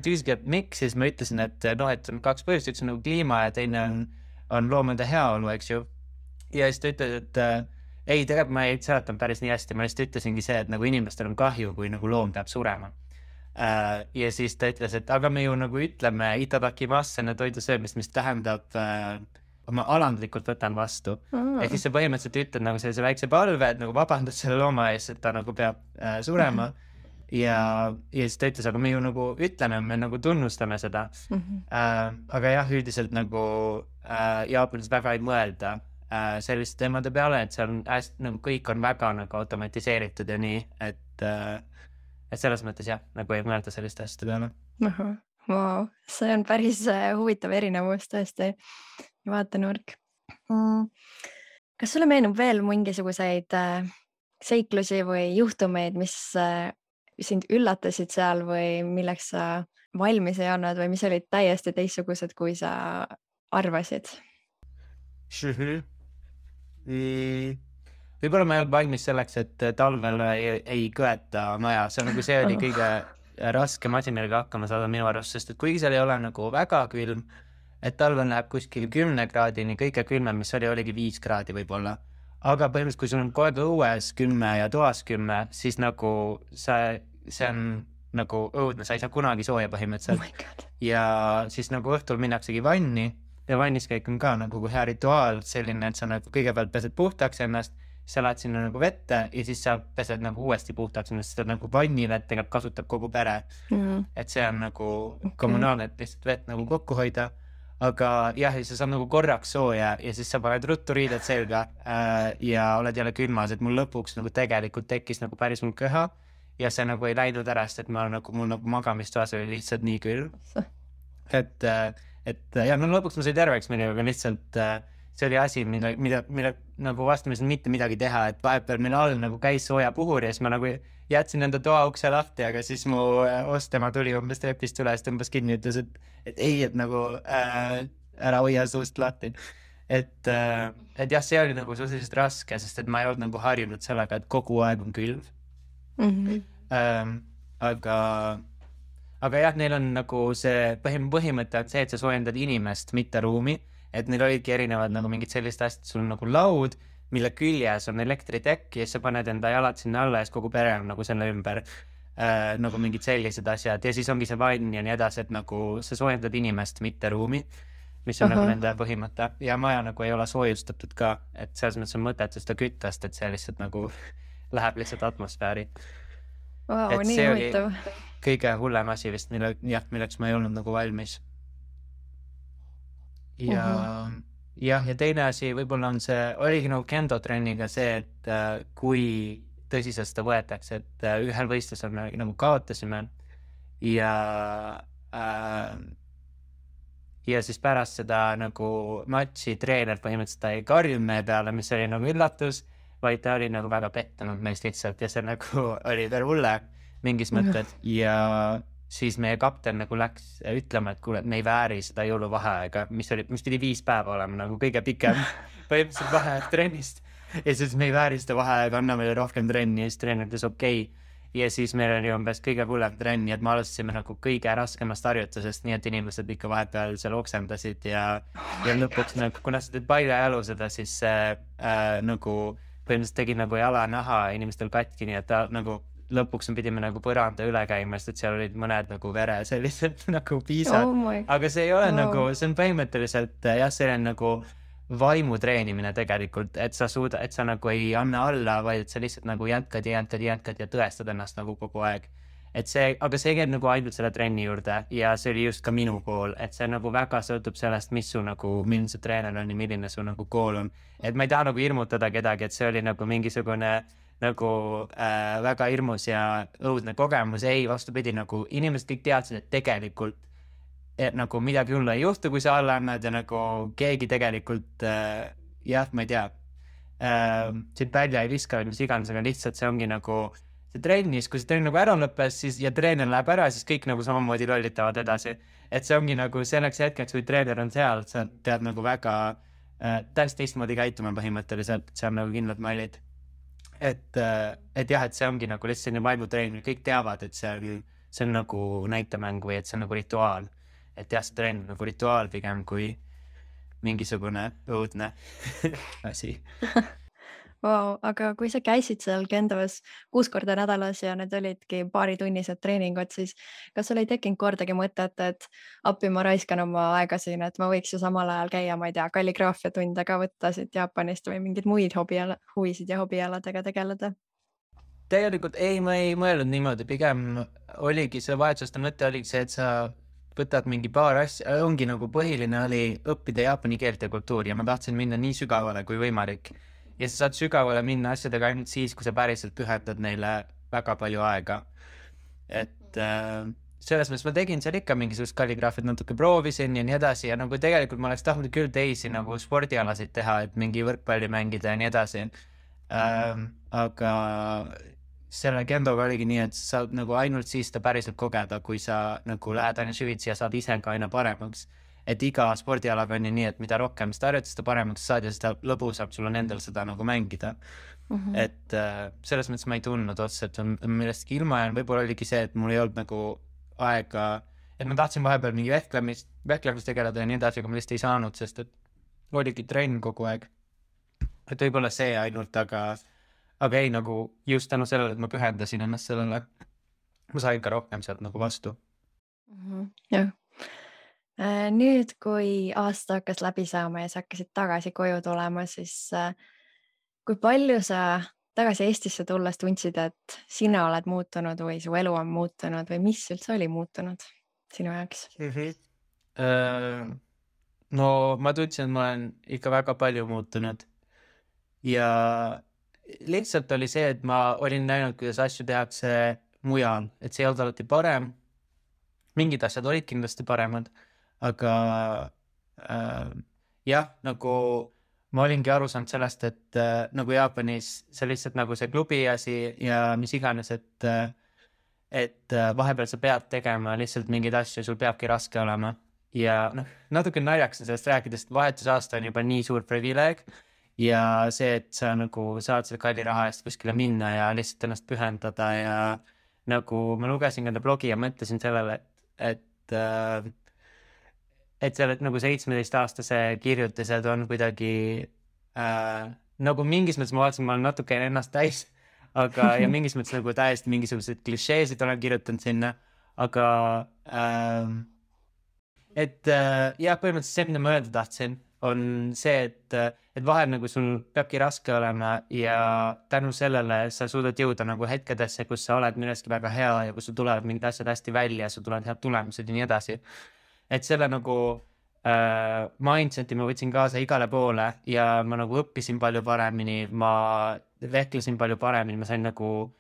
tüüsigi, et miks, siis ma ütlesin, et noh, et on 2 põhjust, üks on nagu kliima ja teine on loomade heaolu, eks ju. Ja siis ta ütles, et ei, tegelikult ma ei seletanud päris nii hästi, ma lihtsalt ütlesingi see, et nagu inimestel on kahju, kui nagu loom peab surema. Ja siis ta ütles, et aga me ju nagu ütleme itadakimasu enne toidu söömist, mis tähendab ma alandlikult võtan vastu. Ehk siis sa põhimõtteliselt ütled nagu sellise väikse palve, et nagu vabandad selle looma ees, et ta nagu peab surema. Ja siis ta ütles, aga me ju nagu ütleme, me nagu tunnustame seda. Aga jah, üldiselt nagu Jaapanis väga ei mõelda selliste teemade peale, et seal on hästi, nagu kõik on väga nagu automatiseeritud ja nii, et selles mõttes jah, nagu ei mõelda selliste asjade peale. Wow, see on päris huvitav erinevus tõesti, vaatenurk. Kas sulle meenub veel mingisuguseid seiklusi või juhtumeid, mis sind üllatasid seal või milleks sa valmis ei olnud või mis olid täiesti teistsugused, kui sa arvasid? Võib-olla ma ei olnud valmis selleks, et talvel ei kõeta maja. See on nagu see oli kõige raskem asi, millega hakkama saada minu arust, sest et kuigi seal ei ole nagu väga külm, et talvel läheb kuskil 10 kraadini, kõige külmem, mis oligi 5 kraadi võib-olla. Aga põhimõtteliselt, kui sul on kogu aeg õues 10 ja toas 10, siis nagu see on nagu õudne, sa ei saa kunagi sooja põhimõtteliselt. Ja siis nagu õhtul minnaksegi vanni ja vanniskäik on ka nagu hea rituaal selline, et sa nagu kõigepealt pesed puhtaks ennast, sa lähed sinna nagu vette ja siis sa pesed nagu uuesti puhtaks ennast, seda nagu vannivett tegelikult kasutab kogu pere. Et see on nagu kommunaalne, et lihtsalt vett nagu kokku hoida. Aga jah, sa saad nagu korraks sooja ja siis sa paned ruttu riided selga ja oled jälle külmas, et mul lõpuks nagu tegelikult tekkis nagu päris mul köha ja see nagu ei läinud ära, sest et mul nagu magamistoas oli lihtsalt nii külm. Et ja no lõpuks ma sai terveks minna, aga lihtsalt see oli asi, mida nagu vastamisel mitte midagi teha, et vahepeal meil all nagu käis sooja puhur ja siis ma nagu jätsin enda toa ukse lahti, aga siis mu ostema tuli umbes trepist üles, tõmbas kinni ja ütles, et ei, et nagu ära hoia suust lahti. Et jah, see oli nagu suhteliselt raske, sest et ma ei olnud nagu harjunud sellega, et kogu aeg on külm. Aga jah, neil on nagu see põhimõte on see, et sa soojendad inimest, mitte ruumi. Et neil olidki erinevad nagu mingid sellist asjad, sul on nagu laud, mille küljes on elektritekk ja sa paned enda jalad sinna alla ja kogu pere on nagu selle ümber. nagu mingid sellised asjad ja siis ongi see vann ja nii edasi, et nagu sa soojendad inimest, mitte ruumi, mis on nagu nende põhimõte ja maja nagu ei ole soojustatud ka, et selles mõttes on mõtet seda küttast, et see lihtsalt nagu läheb lihtsalt atmosfääri. Vau, et nii see oli huvitav. kõige hullem asi vist, milleks ma ei olnud nagu valmis. Ja ja teine asi võib-olla on see, oligi nagu kendo trenniga see, et kui tõsiselt seda võetakse, et ühel võistlusel me nagu kaotasime ja siis pärast seda nagu matši treener põhimõtteliselt ta ei karjunud meie peale, mis oli nagu üllatus, vaid ta oli nagu väga pettunud meist lihtsalt ja see nagu oli veel hulle mingis mõttes ja siis meie kapten nagu läks ütlema, et kuule, et me ei vääri seda jõuluvaheaega, mis pidi 5 päeva olema nagu kõige pikem põhimõtteliselt vaheaeg trennist ja siis me ei vääri seda vaheaega, anna meile rohkem trenni ja siis treener ütles okei. Ja siis meil oli umbes kõige hullem trenn, et me alustasime nagu kõige raskemast harjutusest, nii et inimesed ikka vahepeal seal oksendasid ja lõpuks nagu, kuna sa teed paljajalu seda, siis nagu põhimõtteliselt tegi nagu jalanaha inimestel katki, nii et ta nagu lõpuks pidime nagu põranda üle käima, sest et seal olid mõned nagu vere sellised nagu piisad, aga see ei ole nagu, see on põhimõtteliselt jah, see on nagu vaimu treenimine tegelikult, et sa nagu ei anna alla, vaid sa lihtsalt nagu jätkad ja tõestad ennast nagu kogu aeg. Aga see käib nagu ainult selle trenni juurde ja see oli just ka minu kool, et see nagu väga sõltub sellest, mis su nagu, milline see treener on ja milline su nagu kool on. Et ma ei taha nagu hirmutada kedagi, et see oli nagu mingisugune nagu väga hirmus ja õudne kogemus, ei, vastupidi, nagu inimesed kõik teadsid, et tegelikult et nagu midagi hullu ei juhtu, kui sa alla annad ja nagu keegi tegelikult jah, ma ei tea siit välja ei viska, mis iganes, aga lihtsalt see ongi nagu see trennis, kui see trenn nagu ära lõppes siis, ja treener läheb ära, siis kõik nagu samamoodi lollitavad edasi. Et see ongi nagu selleks hetkeks, kui treener on seal, sa tead nagu väga täiesti teistmoodi käituma põhimõtteliselt, see on nagu kindlad mallid. Et jah, et see ongi nagu lihtsalt selline vaimutreening, kõik teavad, et see on nagu näitemäng või et see on nagu rituaal. Et jah, see trenn on nagu rituaal pigem kui mingisugune õudne asi. Wow, aga kui sa käisid seal Kendos 6 korda nädalas ja need olidki paaritunnised treeningud, siis kas sul ei tekkinud kordagi mõtet, et appi ma raiskan oma aega siin, et ma võiks ju samal ajal käia, ma ei tea, kalligraafia tunde ka võtta siit Jaapanist või mingeid muid huvisid ja hobialadega tegeleda? Tegelikult ei, ma ei mõelnud niimoodi, pigem oligi see vahetuste mõte oligi see, et sa võtad mingi paar asja, ongi nagu põhiline oli õppida jaapani keelt ja kultuuri ja ma tahtsin minna nii sügavale kui võimalik. Ja sa saad sügavale minna asjadega ainult siis, kui sa päriselt pühendad neile väga palju aega. Et selles mõttes ma tegin seal ikka mingisugust kalligraafiat natuke proovisin ja nii edasi ja nagu tegelikult ma oleks tahtnud küll teisi nagu spordialasid teha, et mingi võrkpalli mängida ja nii edasi. Aga selle kendoga oligi nii, et sa saad nagu ainult siis ta päriselt kogeda, kui sa nagu lähed aina süvitsi ja saad ise ka aina paremaks. Et iga spordialaga on nii, et mida rohkem seda harjutada, seda paremaks saad ja seda lõbusam sul on endal seda nagu mängida. Et selles mõttes ma ei tundnud otsa, et on millestki ilma ja võib-olla oligi see, et mul ei olnud nagu aega, et ma tahtsin vahepeal mingi vehklemist tegeleda ja nii edasi, aga ma lihtsalt ei saanud, sest et oligi trenn kogu aeg. Et võib-olla see ainult, aga ei nagu just tänu sellele, et ma pühendasin ennast sellele, ma sain ka rohkem sealt nagu vastu. Jah. Nüüd, kui aasta hakkas läbi saama ja sa hakkasid tagasi koju tulema, siis kui palju sa tagasi Eestisse tulles tundsid, et sina oled muutunud või su elu on muutunud või mis üldse oli muutunud sinu jaoks? No ma tundsin, et ma olen ikka väga palju muutunud ja lihtsalt oli see, et ma olin näinud, kuidas asju tehakse mujal, et see ei olnud alati parem. Mingid asjad olid kindlasti paremad, aga jah, nagu ma olingi aru saanud sellest, et nagu Jaapanis see lihtsalt nagu see klubi asi ja mis iganes, et vahepeal sa pead tegema lihtsalt mingeid asju, sul peabki raske olema. Ja natuke naljakas on sellest rääkides, et vahetusaasta on juba nii suur privileeg ja see, et sa nagu saad selle kalli raha eest kuskile minna ja lihtsalt ennast pühendada ja nagu ma lugesin enda blogi ja mõtlesin sellele, et selle nagu 17-aastase kirjutised on kuidagi nagu mingis mõttes ma vaatasin, ma olen natuke ennast täis, aga ja mingis mõttes nagu täiesti mingisuguseid klišeesid olen kirjutanud sinna, aga jah, põhimõtteliselt see, mida ma öelda tahtsin, on see, et vahel nagu sul peabki raske olema ja tänu sellele sa suudad jõuda nagu hetkedesse, kus sa oled milleski väga hea ja kus sul tulevad mingid asjad hästi välja, sul tulevad head tulemused ja nii edasi. Et selle nagu mindseti ma võtsin kaasa igale poole ja ma nagu õppisin palju paremini, ma vehklesin palju paremini, ma sain nagu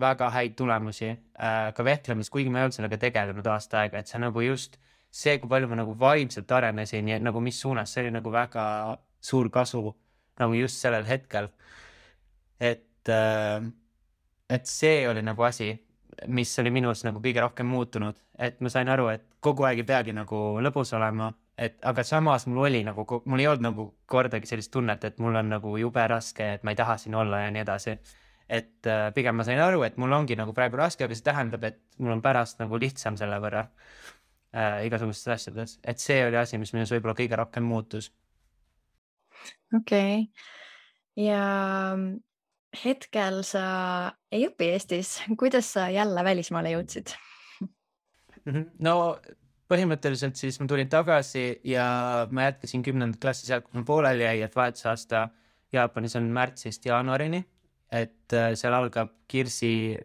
väga häid tulemusi ka vehklemis, kuigi ma ei olnud sellega tegelenud aasta aega, et see nagu just see, kui palju ma nagu vaimselt arenesin ja nagu mis suunas, see oli nagu väga suur kasu nagu just sellel hetkel. Et see oli nagu asi, mis oli minus nagu kõige rohkem muutunud, et ma sain aru, et kogu aeg ei peagi nagu lõbus olema, aga samas mul ei olnud nagu kordagi sellist tunnet, et mul on nagu jube raske, et ma ei taha siin olla ja nii edasi. Et pigem ma sain aru, et mul ongi nagu praegu raske, aga see tähendab, et mul on pärast nagu lihtsam selle võrra igasugustes asjades, et see oli asi, mis minus võib-olla kõige rohkem muutus. Okei. Ja hetkel sa ei õpi Eestis. Kuidas sa jälle välismaale jõudsid? No põhimõtteliselt siis ma tulin tagasi ja ma jätkasin 10. klassi sealt, kus ma pooleli jäi, et vahetusaasta Jaapanis on märtsist jaanuarini, et seal algab kirsi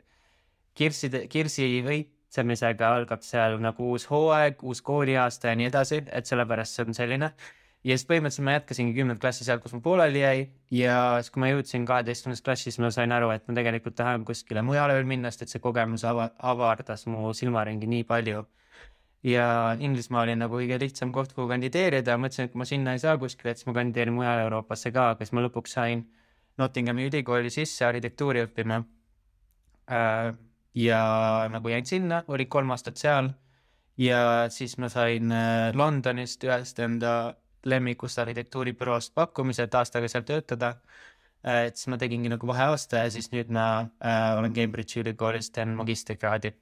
õitsemisega algab seal nagu uus hooaeg, uus kooliaasta ja nii edasi, et sellepärast see on selline. Ja siis põhimõtteliselt ma jätkasingi 10. klassi sealt, kus ma pooleli jäi ja siis kui ma jõudsin 12. klassis, ma sain aru, et ma tegelikult tahan kuskile mujale veel minna, sest et see kogemus avardas mu silmaringi nii palju. Ja Inglismaa oli nagu kõige lihtsam koht, kuhu kandideerida, mõtlesin, et kui ma sinna ei saa kuskile, et siis ma kandideerin mujale Euroopasse ka, aga siis ma lõpuks sain Nottinghami ülikooli sisse arhitektuuri õppima. Ja nagu jäin sinna, oli 3 aastat seal ja siis ma sain Londonist ühest enda lemmikust arhitektuuribüroost pakkumise, et aastaga seal töötada. Et siis ma tegingi nagu vaheaasta ja siis nüüd ma olen Cambridge'i ülikoolist teen magistrikraadi.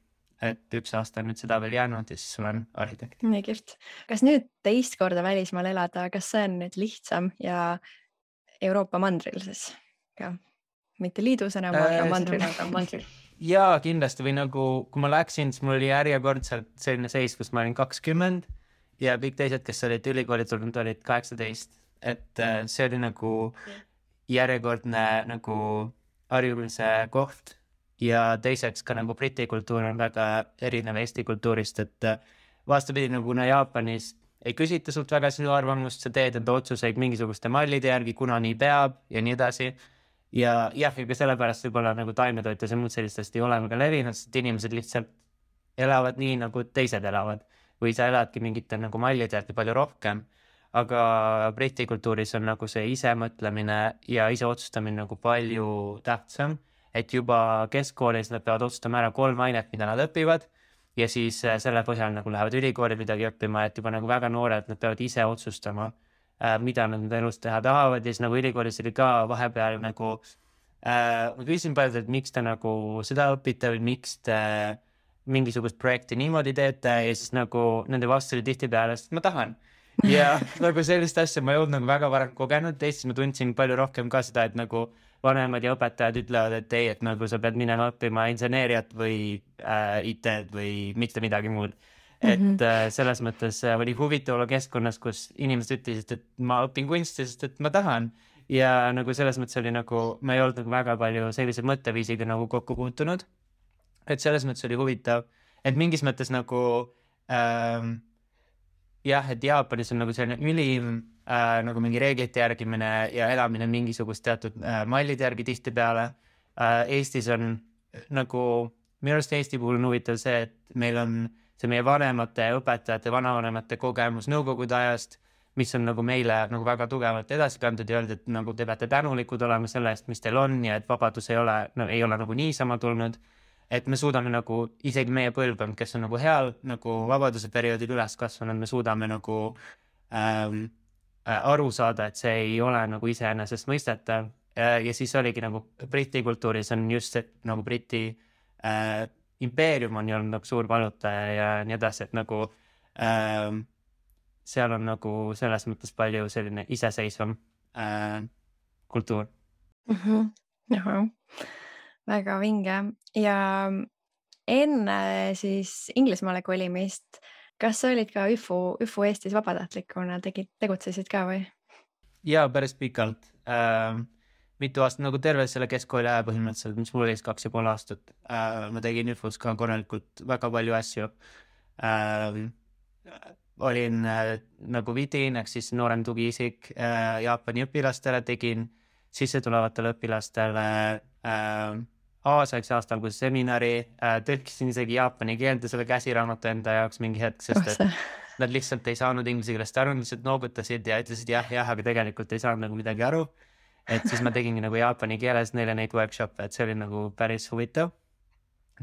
Et 1 aasta on nüüd seda veel jäänud ja siis olen arhitekt. Nii kihvt. Kas nüüd teist korda välismaal elada, kas see on nüüd lihtsam ja Euroopa mandril siis ka? Mitte liidus enam, aga mandril. Jaa, kindlasti või nagu, kui ma läksin, siis mul oli järjekordselt selline seis, kus ma olin 20 ja kõik teised, kes olid ülikooli tulnud, olid 18. Et see oli nagu järjekordne nagu harjumise koht ja teiseks ka nagu Briti kultuur on väga erinev Eesti kultuurist, et vastupidi nagu Jaapanis ei küsita sult väga sinu arvamust, sa teed enda otsuseid mingisuguste mallide järgi, kuna nii peab ja nii edasi. Ja ka sellepärast võib-olla nagu taimetoitlus ja muud sellistest ei ole väga levinud, sest inimesed lihtsalt elavad nii, nagu teised elavad. Või sa eladki mingite nagu mallide järgi palju rohkem, aga Briti kultuuris on nagu see ise mõtlemine ja ise otsustamine nagu palju tähtsam, et juba keskkoolis nad peavad otsustama ära 3 ainet, mida nad õpivad ja siis selle põhjal nagu lähevad ülikooli midagi õppima, et juba nagu väga noored, nad peavad ise otsustama, mida nad elus teha tahavad ja siis nagu ülikoolis oli ka vahepeal nagu ma küsisin palju, et miks te nagu seda õpite või miks te mingisugust projekti niimoodi teete ja siis nagu nende vastu oli tihtipeale, sest ma tahan. Ja nagu sellist asja ma ei olnud nagu väga varem kogenud, teistes ma tundsin palju rohkem ka seda, et nagu vanemad ja õpetajad ütlevad, et ei, et nagu sa pead minema õppima inseneeriat või IT-d või mitte midagi muud. Et selles mõttes oli huvitav olla keskkonnas, kus inimesed ütlesid, et ma õpin kunsti, sest et ma tahan. Ja nagu selles mõttes oli nagu, ma ei olnud nagu väga palju sellise mõtteviisiga nagu kokku puutunud. Et selles mõttes oli huvitav, et mingis mõttes nagu et Jaapanis on nagu selline ülim nagu mingi reeglite järgimine ja elamine mingisugust teatud mallide järgi tihtipeale. Eestis on nagu, minu arust Eesti puhul on huvitav see, et meil on see meie vanemate, õpetajate, vanavanemate kogemus nõukogude ajast, mis on nagu meile nagu väga tugevalt edasi kantud ja öeldud, et nagu te peate tänulikud olema selle eest, mis teil on ja et vabadus ei ole nagu niisama tulnud. Et me suudame nagu, isegi meie põlvkond, kes on nagu heal nagu vabaduse perioodil üles kasvanud, me suudame nagu aru saada, et see ei ole nagu iseenesest mõistetav. Ja siis oligi nagu Briti kultuuris on just see nagu Briti impeerium on olnud nagu suur valutaja ja nii edasi, et nagu seal on nagu selles mõttes palju selline iseseisvam kultuur. Jaha. väga vinge ja enne siis Inglismaale kolimist, kas sa olid ka ÜFU Eestis vabatahtlikuna, tegutsesid ka või? Ja päris pikalt. Mitu aastat nagu terve selle keskkooli aja põhimõtteliselt, mis mul oli 2,5 aastat. Ma tegin ÜFUs ka korralikult väga palju asju. Olin nagu vidin, ehk siis noorem tugiisik Jaapani õpilastele, tegin sissetulevatele õpilastele Aasiaks aastal kui seminari, tõlkisin isegi jaapani keelde selle käsiraamatu enda jaoks mingi hetk, sest et nad lihtsalt ei saanud inglise keelest aru, lihtsalt noogutasid ja ütlesid jah, aga tegelikult ei saanud nagu midagi aru. Et siis ma tegingi nagu jaapani keeles neile neid workshop'e, et see oli nagu päris huvitav.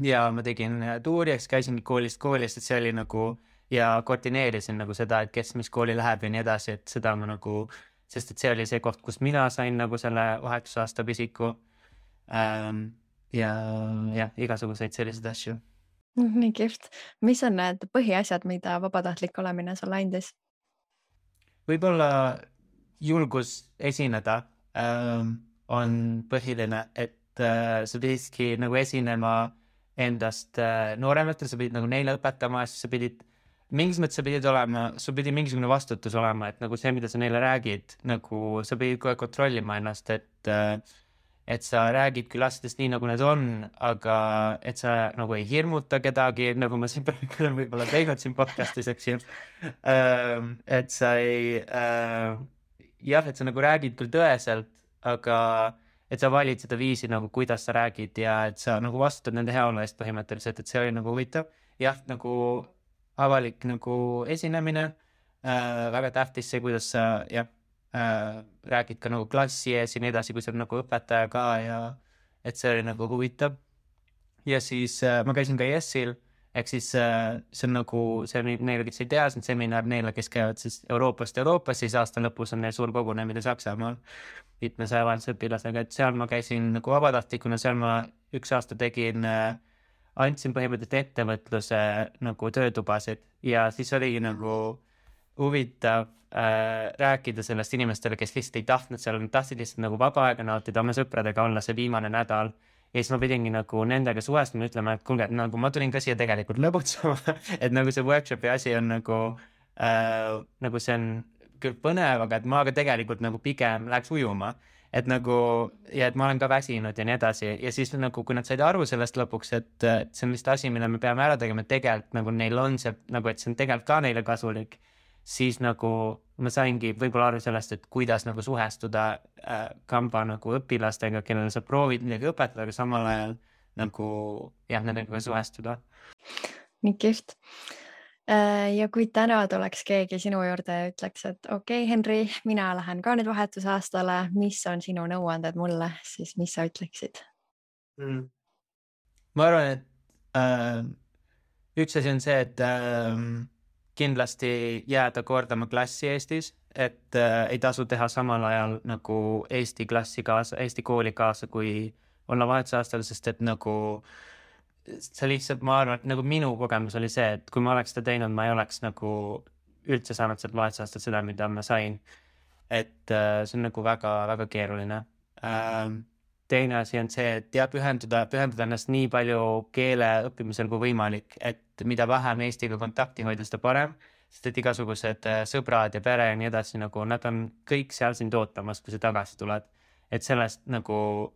Ja ma tegin tuuriaks, käisingi koolist, et see oli nagu ja koordineerisin nagu seda, et kes mis kooli läheb ja nii edasi, et seda ma nagu, sest et see oli see koht, kus mina sain nagu selle vahetusaasta pisiku ja igasuguseid selliseid asju. Nii kihvt. Mis on need põhiasjad, mida vabatahtlik olemine sulle andis? Võib-olla julgus esineda on põhiline, et sa pididki nagu esinema endast noorematele, sa pidid nagu neile õpetama, siis sa pidid mingis mõttes sa pidid olema, sul pidi mingisugune vastutus olema, et nagu see, mida sa neile räägid, nagu sa pidid kohe kontrollima ennast, et sa räägid küll asjadest nii, nagu need on, aga et sa nagu ei hirmuta kedagi, nagu ma siin praegu võib-olla teinud siin podcastis, eks ju. Et sa ei, et sa nagu räägid küll tõeselt, aga et sa valid seda viisi nagu, kuidas sa räägid ja et sa nagu vastutad nende heaolu eest põhimõtteliselt, et see oli nagu huvitav. Jah, nagu avalik nagu esinemine, väga tähtis see, kuidas sa räägid ka nagu klassi ees ja nii edasi, kui sa oled nagu õpetaja ka ja et see oli nagu huvitav. Ja siis ma käisin ka ES-il, ehk siis see on nagu, see on neile, kes ei tea, see on seminar neile, kes käivad siis Euroopast, siis aasta lõpus on neil suur kogunemine Saksamaal 500 vahelise õpilasega, et seal ma käisin nagu vabatahtlikuna, seal ma 1 aasta tegin, andsin põhimõtteliselt ettevõtluse nagu töötubasid ja siis oligi nagu huvitav rääkida sellest inimestele, kes lihtsalt ei tahtnud seal, tahtsid lihtsalt nagu vaba aega nautida, oma sõpradega olla see viimane nädal ja siis ma pidingi nagu nendega suvestama, ütlema, et kuulge, nagu ma tulin ka siia tegelikult lõbutsema, et nagu see workshopi asi on nagu see on küll põnev, aga et ma ka tegelikult nagu pigem läheks ujuma, et nagu ja et ma olen ka väsinud ja nii edasi ja siis nagu, kui nad said aru sellest lõpuks, et see on vist asi, mille me peame ära tegema, et tegelikult nagu neil on see, nagu et see on tegelikult ka neile kasulik, siis nagu ma saingi võib-olla aru sellest, et kuidas nagu suhestuda kamba nagu õpilastega, kellele sa proovid midagi õpetada, aga samal ajal nagu nendega suhestuda. Nii kihvt. Ja kui täna tuleks keegi sinu juurde ja ütleks, et okei, Henri, mina lähen ka nüüd vahetusaastale, mis on sinu nõuanded mulle, siis mis sa ütleksid? Ma arvan, et üks asi on see, et kindlasti jääda kordama klassi Eestis, et ei tasu teha samal ajal nagu Eesti kooli kaasa, kui olla vahetusaastal, sest et nagu see lihtsalt, ma arvan, et nagu minu kogemus oli see, et kui ma oleks seda teinud, ma ei oleks nagu üldse saanud sealt vahetusaastal seda, mida ma sain. Et see on nagu väga-väga keeruline. Teine asi on see, et pühenduda ennast nii palju keele õppimisel kui võimalik, et mida vähem Eestiga kontakti hoida, seda parem, sest et igasugused sõbrad ja pere ja nii edasi, nagu nad on kõik seal sind ootamas, kui sa tagasi tuled. Et sellest nagu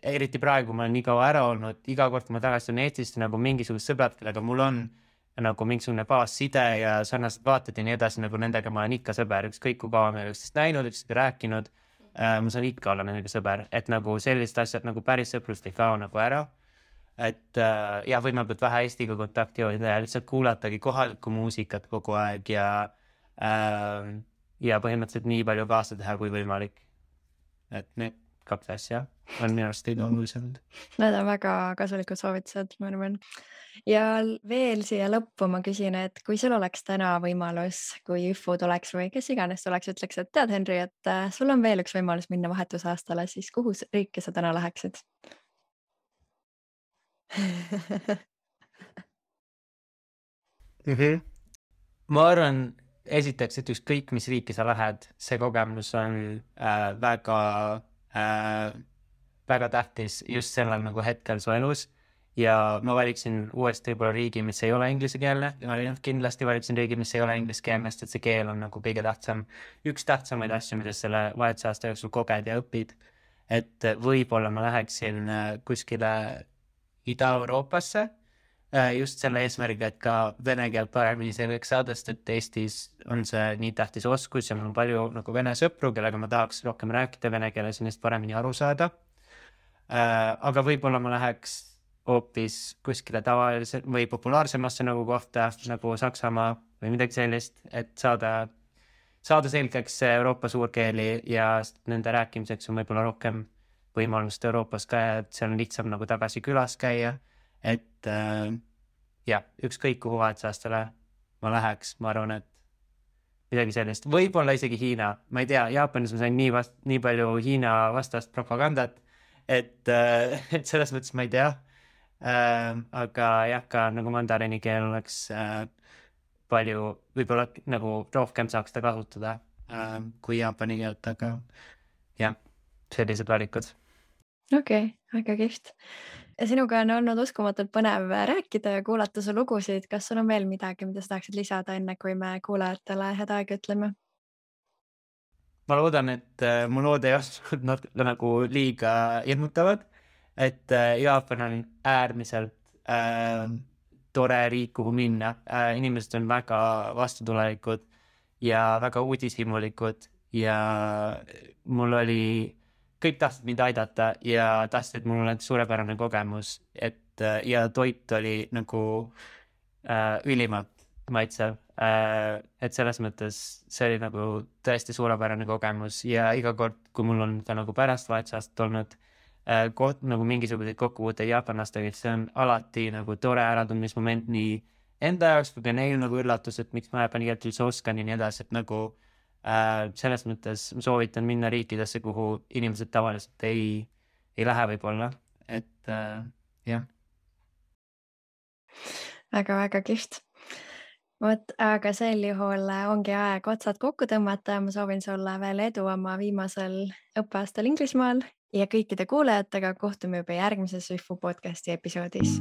eriti praegu ma olen nii kaua ära olnud, iga kord, kui ma tagasi tulen Eestisse, nagu mingisugused sõbrad, kellega mul on nagu mingisugune baasside ja sarnased vaated ja nii edasi, nagu nendega ma olen ikka sõber, ükskõik kui kaua me üksteist näinud, üksteist rääkinud, ma saan ikka olla nendega sõber, et nagu sellised asjad nagu päris sõprust ei kao nagu ära, et võimaldab vähe Eestiga kontakti hoida ja lihtsalt kuulatagi kohalikku muusikat kogu aeg ja põhimõtteliselt nii palju kaasa teha kui võimalik. Et need 2 asja on minu arust olulisemad. Need on väga kasulikud soovitused, ma arvan. Ja veel siia lõppu ma küsin, et kui sul oleks täna võimalus, kui ÜFU tuleks või kes iganes tuleks, ütleks, et tead, Henri, et sul on veel üks võimalus minna vahetusaastale, siis kuhu riiki sa täna läheksid? Ma arvan, esiteks, et ükskõik mis riiki sa lähed, see kogemus on väga väga tähtis just sellel nagu hetkel su elus ja ma valiksin uuesti võib-olla riigi, mis ei ole inglisekeelne, kindlasti valiksin riigi, mis ei ole ingliskeelne, sest et see keel on nagu kõige tähtsam, üks tähtsamaid asju, mida selle vahetusaasta jooksul koged ja õpid. Et võib-olla ma läheksin kuskile Ida-Euroopasse just selle eesmärgiga, et ka vene keelt paremini selgeks saada, sest et Eestis on see nii tähtis oskus ja mul on palju nagu vene sõpru, kellega ma tahaks rohkem rääkida vene keeles ja neist paremini aru saada. Aga võib-olla ma läheks hoopis kuskile tavalise või populaarsemasse nagu kohta nagu Saksamaa või midagi sellist, et saada selgeks Euroopa suurkeeli ja nende rääkimiseks on võib-olla rohkem võimalust Euroopas ka ja et seal on lihtsam nagu tagasi külas käia. Et ükskõik kuhu vahetusaastale ma läheks, ma arvan, et midagi sellist, võib-olla isegi Hiina, ma ei tea, Jaapanis ma sain nii palju Hiina vastast propagandat, et selles mõttes ma ei tea, aga jah, ka nagu mandarini keel oleks palju, võib-olla nagu rohkem saaks ta kasutada kui jaapani keelt, aga jah, sellised valikud. Okei, väga kihvt. Sinuga on olnud uskumatult põnev rääkida ja kuulata su lugusid. Kas sul on veel midagi, mida sa tahaksid lisada enne, kui me kuulajatele head aega ütleme? Ma loodan, et mu lood ei olnud nagu liiga hirmutavad, et Jaapan on äärmiselt tore riik, kuhu minna. Inimesed on väga vastutulelikud ja väga uudishimulikud ja mul oli kõik tahtsid mind aidata ja tahtsid, et mul oleks suurepärane kogemus, et ja toit oli nagu ülimalt maitsev, et selles mõttes see oli nagu tõesti suurepärane kogemus ja iga kord, kui mul on ka nagu pärast vahetusaastat olnud nagu mingisuguseid kokkupuuteid jaapanlastega, see on alati nagu tore äratundmismoment nii enda jaoks kui ka neil nagu üllatus, et miks ma jaapani keelt üldse oskan ja nii edasi, et nagu selles mõttes soovitan minna riikidesse, kuhu inimesed tavaliselt ei lähe võib-olla, et jah. Väga kihvt. Vot, aga sel juhul ongi aeg otsad kokku tõmmata ja ma soovin sulle veel edu oma viimasel õppeaastal Inglismaal ja kõikide kuulajatega kohtume juba järgmises Swifu podcasti episoodis.